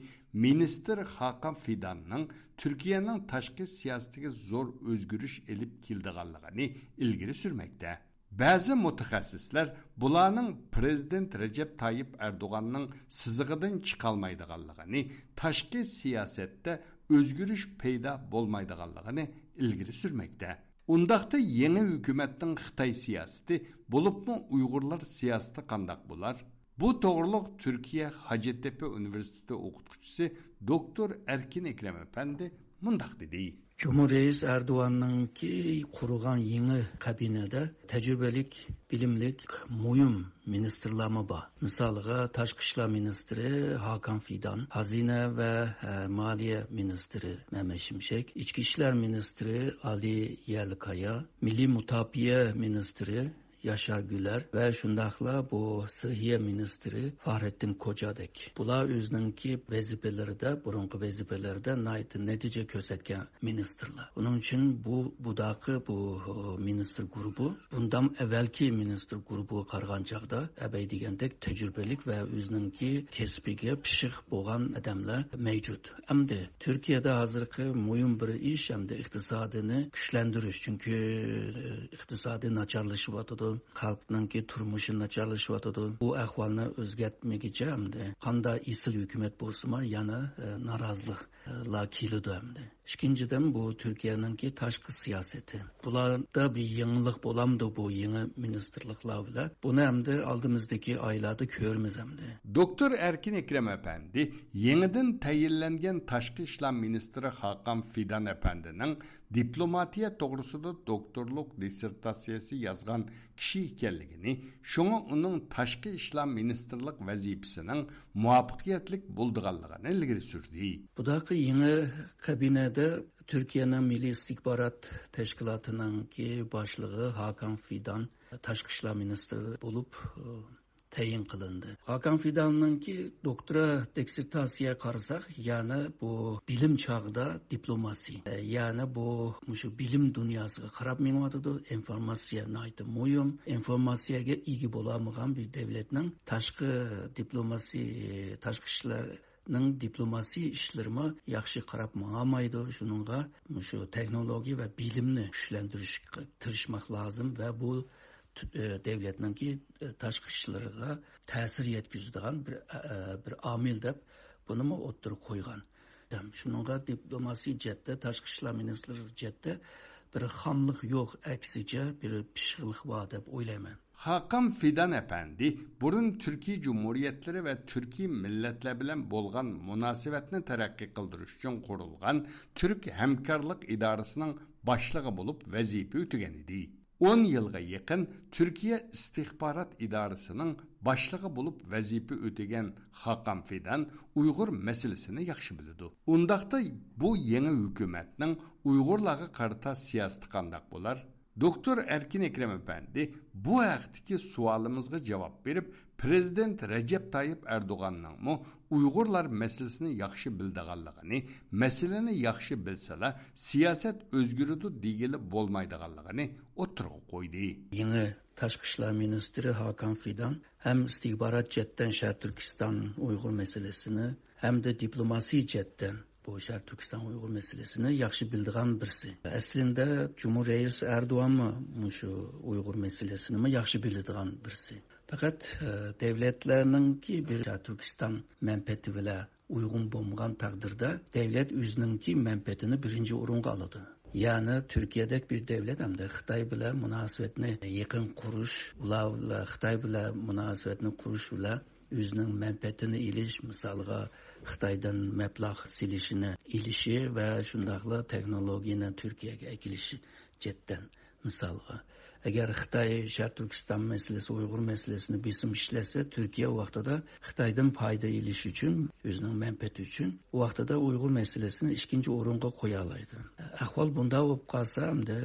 مىنىستىر خاقان فىداننىڭ تۈركىيەنىڭ تاشقى سىياسىتىگە زور ئۆزگىرىش ئېلىپ كېلىدىغانلىقىنى ئىلگىرى سۈرمەكتە. بەزى مۇتەخەسسىسلەر بۇلارنىڭ پرېزىدېنت رەجەپ تايىپ ئەردوغاننىڭ سىزىقىدىن چىقالمايدىغانلىقىنى، تاشقى سىياسەتتە ئۆزگىرىش پەيدا بولمايدىغانلىقىنى ئىلگىرى سۈرمەكتە. ئۇنداقتا يېڭى ھۆكۈمەتنىڭ خىتاي سىياسىتى، بولۇپمۇ ئۇيغۇرلار سىياسىتى قانداق بولار؟ بۇ توغرۇلۇق تۈركىيە ھاجەتتەپە ئۇنىۋېرسىتېتى ئوقۇتقۇچىسى دوكتور ئەركىن ئەكرەم ئەپەندى مۇنداق دېدى. جۇمھۇر رەئىس ئەردوغاننىڭكى قۇرغان يېڭى كابىنېتىدا تەجرىبىلىك، بىلىملىك، مۇھىم مىنىستىرلارمۇ بار. مىسالىغا، تاشقى ئىشلار مىنىستىرى ھاكان فىدان، خەزىنە ۋە، ئە، مالىيە مىنىستىرى مەمەت شىمشەك، ئىچكى ئىشلار مىنىستىرى ئالى يەرلىكايا، مىللىي مۇداپىئە مىنىستىرى ياشار گۈلەر ۋە شۇنداقلا بۇ سىھىيە مىنىستىرى فاھرەتتىن كوجادەك. بۇلار ئۆزىنىڭكى ۋەزىپىلىرىدە، بۇرۇنقى ۋەزىپىلىرىدە ناھايىتى نەتىجە كۆرسەتكەن مىنىستىرلار. ئۇنىڭ ئۈچۈن بۇ، بۇداقى بۇ، ئۇ، مىنىستىر گۇرۇپى بۇندام ئەۋۋەلكى مىنىستىر گۇرۇپىغا قارىغان چاغدا ئەبەي دېگەندەك تەجرىبىلىك ۋە ئۆزىنىڭكى كەسپىگە پىششىق بولغان ئادەملەر مەۋجۇت. ئەمدى تۈركىيەدە ھازىرقى مۇھىم بىر ئىش ئەمدى ئىقتىسادىنى كۈچلەندۈرۈش. چۈنكى ئىقتىسادى ناچارلىشىۋاتىدۇ. خەلقنىڭكى تۇرمۇشى ناچارلىشىۋاتىدۇ. بۇ ئەھۋالنى ئۆزگەرتمىگۈچە ئەمدى قاندا ئېسىل ھۆكۈمەت بولسىمۇ، يەنە، ئە، نارازىلىقلار كېلىدۇ ئەمدى. ئىككىنچىدىن، بۇ تۈركىيەنىڭكى تاشقى سىياسىتى. بۇلاردا بىر يېڭىلىق بولامدۇ بۇ يېڭى مىنىستىرلىقلار بىلەن؟ بۇنى ئەمدى ئالدىمىزدىكى ئايلاردا كۆرىمىز ئەمدى. دوكتور ئەركىن ئەكرەم ئەپەندى يېڭىدىن تەيىنلەنگەن تاشقى ئىشلار مىنىستىرى خاقان فىدان ئەپەندىنىڭ دىپلوماتىيە توغرىسىدا دوكتورلۇق دىسسېرتاتسىيەسى يازغان كىشى ئىكەنلىكىنى، شۇڭا ئۇنىڭ تاشقى ئىشلار مىنىستىرلىق ۋەزىپىسىنىڭ مۇۋەپپەقىيەتلىك بولىدىغانلىقىنى ئىلگىرى سۈردى. بۇداقى يېڭى كابىنەدە تۈركىيەنىڭ مىللىي ئىستىخبارات تەشكىلاتىنىڭكى باشلىقى ھاكان فىدان تاشقى ئىشلار مىنىستىرى بولۇپ، ئى، تەيىن قىلىندى. ھاكان فىداننىڭكى دوكتورا دىسسېرتاتسىيە قارىساق، يەنى بۇ بىلىم چاغدا دىپلوماسىيە، يەنى بۇ مۇشۇ بىلىم دۇنياسىغا قاراپ مېڭىۋاتىدۇ. ئىنفورماتسىيە ناھايىتى مۇھىم. ئىنفورماتسىيەگە ئىگە بولالمىغان بىر دۆلەتنىڭ تاشقى دىپلوماسىيە، تاشقى ئىشلارنىڭ دىپلوماسىيە ئىشلىرىمۇ ياخشى قاراپ ماڭالمايدۇ. شۇنىڭغا مۇشۇ تېخنولوگىيە ۋە بىلىمنى كۈچلەندۈرۈشكە تىرىشماق لازىم ۋە بۇ تۈ-، ئە، دۆلەتنىڭكى، ئە، تاشقى ئىشلىرىغا تەسىر يەتكۈزىدىغان بىر، ئە، ئە، بىر ئامىل دەپ بۇنىمۇ ئوتتۇرىغا قويغان. شۇنىڭغا دىپلوماسىيە جەھەتتە، تاشقى ئىشلار مىنىستىرلىقى جەھەتتە بىر خاملىق يوق، ئەكسىچە بىر پىششىقلىق بار دەپ ئويلايمەن. خاقان فىدان ئەپەندى بۇرۇن تۈركىي جۇمھۇرىيەتلىرى ۋە تۈركىي مىللەتلەر بىلەن بولغان مۇناسىۋەتنى تەرەققىي قىلدۇرۇش ئۈچۈن قۇرۇلغان تۈرك ھەمكارلىق ئىدارىسىنىڭ باشلىقى بولۇپ ۋەزىپە ئۆتىگەن ئىدى. ئون يىلغا يېقىن تۈركىيە ئىستىخبارات ئىدارىسىنىڭ باشلىقى بولۇپ ۋەزىپە ئۆتىگەن خاقان فىدان ئۇيغۇر مەسىلىسىنى ياخشى بىلىدۇ. ئۇنداقتا بۇ يېڭى ھۆكۈمەتنىڭ ئۇيغۇرلارغا قارىتا سىياسىتى قانداق بولار؟ دوكتور ئەركىن ئەكرەم ئەپەندى بۇ ھەقتىكى سوئالىمىزغا جاۋاب بېرىپ، پىرېزىدېنت رەجەپ تايىپ ئەردوغاننىڭمۇ ئۇيغۇرلار مەسىلىسىنى ياخشى بىلىدىغانلىقىنى، مەسىلىنى ياخشى بىلسىلا، سىياسەت ئۆزگىرىدۇ دېگىلى بولمايدىغانلىقىنى ئوتتۇرىغا قويدى. يېڭى تاشقى ئىشلار مىنىستىرى ھاكان فىدان ھەم ئىستىخبارات جەھەتتىن شەرقىي تۈركىستان ئۇيغۇر مەسىلىسىنى ھەمدە دىپلوماسىيە جەھەتتىن بۇ شەرقىي تۈركىستان ئۇيغۇر مەسىلىسىنى ياخشى بىلىدىغان بىرسى. ئەسلىندە جۇمھۇر رەئىسى ئەردوغانمۇ مۇشۇ ئۇيغۇر مەسىلىسىنىمۇ ياخشى بىلىدىغان بىرسى. پەقەت، ئە، دۆلەتلەرنىڭكى بىر شەرقىي تۈركىستان مەنپەئەتى بىلەن ئۇيغۇن بولمىغان تەقدىردە، دۆلەت ئۆزىنىڭكى مەنپەئەتىنى بىرىنچى ئورۇنغا ئالىدۇ. يەنى تۈركىيەدەك بىر دۆلەت ھەمدە خىتاي بىلەن مۇناسىۋەتنى يېقىن قۇرۇش، ئۇلار بىلەن، خىتاي بىلەن مۇناسىۋەتنى قۇرۇش بىلەن ئۆزىنىڭ مەنپەئەتىنى ئېلىش، مىسالغا، خىتايدىن مەبلەغ سېلىشىنى ئېلىشى ۋە شۇنداقلا تېخنولوگىيەنى تۈركىيەگە ئەكېلىشى جەھەتتىن. مىسالغا، ئەگەر خىتاي شەرقىي تۈركىستان مەسىلىسى، ئۇيغۇر مەسىلىسىنى بېسىم ئىشلەتسە، تۈركىيە ۋاقتىدا خىتايدىن پايدا ئېلىش ئۈچۈن، ئۆزىنىڭ مەنپەئەتى ئۈچۈن، ۋاقتىدا ئۇيغۇر مەسىلىسىنى ئىككىنچى ئورۇنغا قويالايدۇ. ئەھۋال بۇنداق بولۇپ قالسا، ئەمدى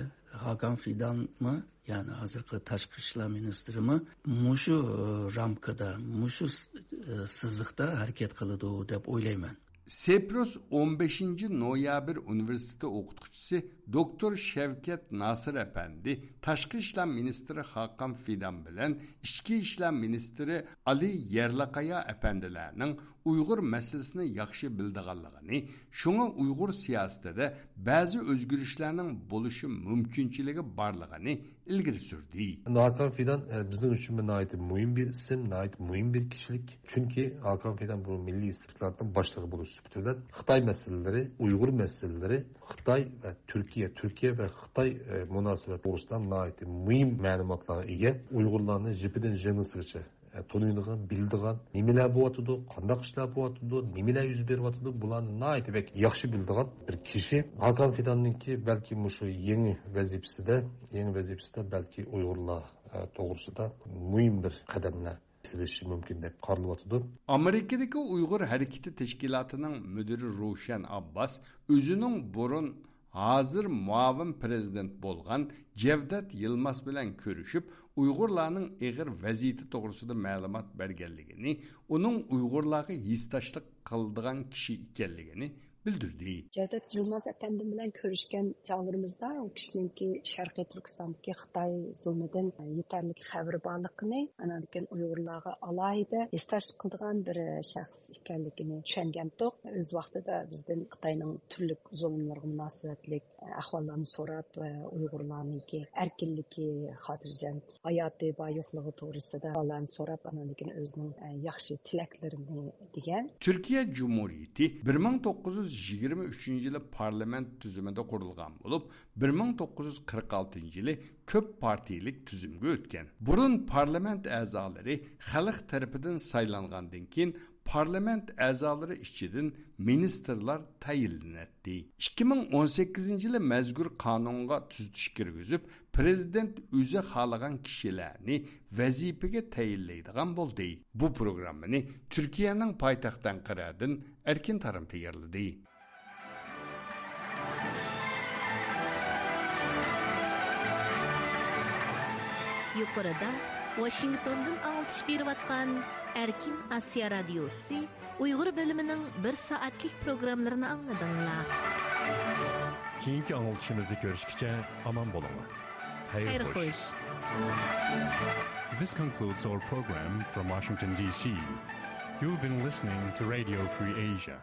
ھاكان فىدانمۇ، يەنى ھازىرقى تاشقى ئىشلار مىنىستىرىمۇ مۇشۇ، ئى، رامكىدا، مۇشۇ س-، ئى، سىزىقتا ھەرىكەت قىلىدۇ دەپ ئويلايمەن. سېپروس ئون بەشىنچى نويابىر ئۇنىۋېرسىتېتى ئوقۇتقۇچىسى دوكتور شەۋكەت ناسىر ئەپەندى تاشقى ئىشلار مىنىستىرى خاقان فىدان بىلەن ئىچكى ئىشلار مىنىستىرى ئالى يەرلىقايا ئەپەندىلەرنىڭ ئۇيغۇر مەسىلىسىنى ياخشى بىلىدىغانلىقىنى، شۇڭا ئۇيغۇر سىياسىتىدە بەزى ئۆزگىرىشلەرنىڭ بولۇشى مۇمكىنچىلىكى بارلىقىنى ئىلگىرى سۈردى. ھاكان فىدان، ئە، بىزنىڭ ئۈچۈن بىر ناھايىتى مۇھىم بىر ئىسىم، ناھايىتى مۇھىم بىر كىشىلىك. چۈنكى ھاكان فىدان بۇ مىللىي ئىستىخباراتنىڭ باشلىقى بولۇش سۈپىتى بىلەن خىتاي مەسىلىلىرى، ئۇيغۇر مەسىلىلىرى، خىتاي ۋە تۈركىيە، تۈركىيە ۋە خىتاي، ئە، مۇناسىۋەت توغرىسىدا ناھايىتى مۇھىم مەلۇماتلارغا ئىگە. ئۇيغۇرلارنى جىپىدىن ژىڭنىسىغىچە، ئە، تونۇيدىغان، بىلىدىغان، نېمىلەر بولۇۋاتىدۇ، قانداق ئىشلار بولۇۋاتىدۇ، نېمىلەر يۈز بېرىۋاتىدۇ، بۇلارنى ناھايىتى بەك ياخشى بىلىدىغان بىر كىشى. ھاكان فىداننىڭكى بەلكى مۇشۇ يېڭى ۋەزىپىسىدە، يېڭى ۋەزىپىسىدە بەلكى ئۇيغۇرلار، ئە، توغرىسىدا مۇھىم بىر قەدەملەر سېلىشى مۇمكىن دەپ قارىلىۋاتىدۇ. ئامېرىكىدىكى ئۇيغۇر ھەرىكىتى تەشكىلاتىنىڭ مۇدىرى روشەن ئابباس ئۆزىنىڭ بۇرۇن، ھازىر مۇئاۋىن پىرېزىدېنت بولغان جەۋدەت يىلماز بىلەن كۆرۈشۈپ، ئۇيغۇرلارنىڭ ئېغىر ۋەزىيىتى توغرىسىدا مەلۇمات بەرگەنلىكىنى، ئۇنىڭ ئۇيغۇرلارغا ھېسداشلىق قىلىدىغان كىشى ئىكەنلىكىنى بىلدۈردى. جەۋدەت يىلماز ئەپەندىم بىلەن كۆرۈشكەن چاغلىرىمىزدا ئۇ كىشىنىڭكى شەرقىي تۈركىستاندىكى خىتاي زۇلمىدىن يېتەرلىك خەۋىرى بارلىقىنى، ئاندىن كېيىن ئۇيغۇرلارغا ئالاھىدە ھېسداشلىق قىلىدىغان بىر شەخس ئىكەنلىكىنى چۈشەنگەنتۇق. ئۆز ۋاقتىدا بىزدىن خىتاينىڭ تۈرلۈك زۇلۇملىرىغا مۇناسىۋەتلىك ئەھۋاللارنى سوراپ، ئۇيغۇرلارنىڭكى ئەركىنلىكى، خاتىرجەم ھاياتى بار يوقلۇقى توغرىسىدا ئەھۋاللارنى سوراپ، ئاندىن كېيىن ئۆزىنىڭ ياخشى تىلەكلىرىنى دېگەن. تۈركىيە جۇمھۇرىيىتى بىر مىڭ توققۇز يۈز يىگىرمە ئۈچىنچى يىلى پارلامېنت تۈزۈمىدە قۇرۇلغان بولۇپ، بىر مىڭ توققۇز يۈز قىرىق ئالتىنچى يىلى كۆپ پارتىيىلىك تۈزۈمگە ئۆتكەن. بۇرۇن پارلامېنت ئەزالىرى خەلق تەرىپىدىن سايلانغاندىن كېيىن، پارلامېنت ئەزالىرى ئىچىدىن مىنىستىرلار تەيىنلىنەتتى. ئىككى مىڭ ئون سەككىزىنچى يىلى مەزكۇر قانۇنغا تۈزىتىش كىرگۈزۈپ، پىرېزىدېنت ئۆزى خالىغان كىشىلەرنى ۋەزىپىگە تەيىنلەيدىغان بولدى. بۇ پروگراممىنى تۈركىيەنىڭ پايتەختى ئەنقەرەدىن ئەركىن تارىم تەييارلىدى. يۇقىرىدا ۋاشىنگتوندىن ئاڭلىتىش بېرىۋاتقان ئەركىن ئاسىيا رادىيوسى ئۇيغۇر بۆلۈمىنىڭ بىر سائەتلىك پروگراممىلىرىنى ئاڭلىدىڭلار. كېيىنكى ئاڭلىتىشىمىزدا كۆرۈشكىچە ئامان بولۇڭلار. خەير خوش. This concludes our program from Washington, D C. You've been listening to Radio Free Asia.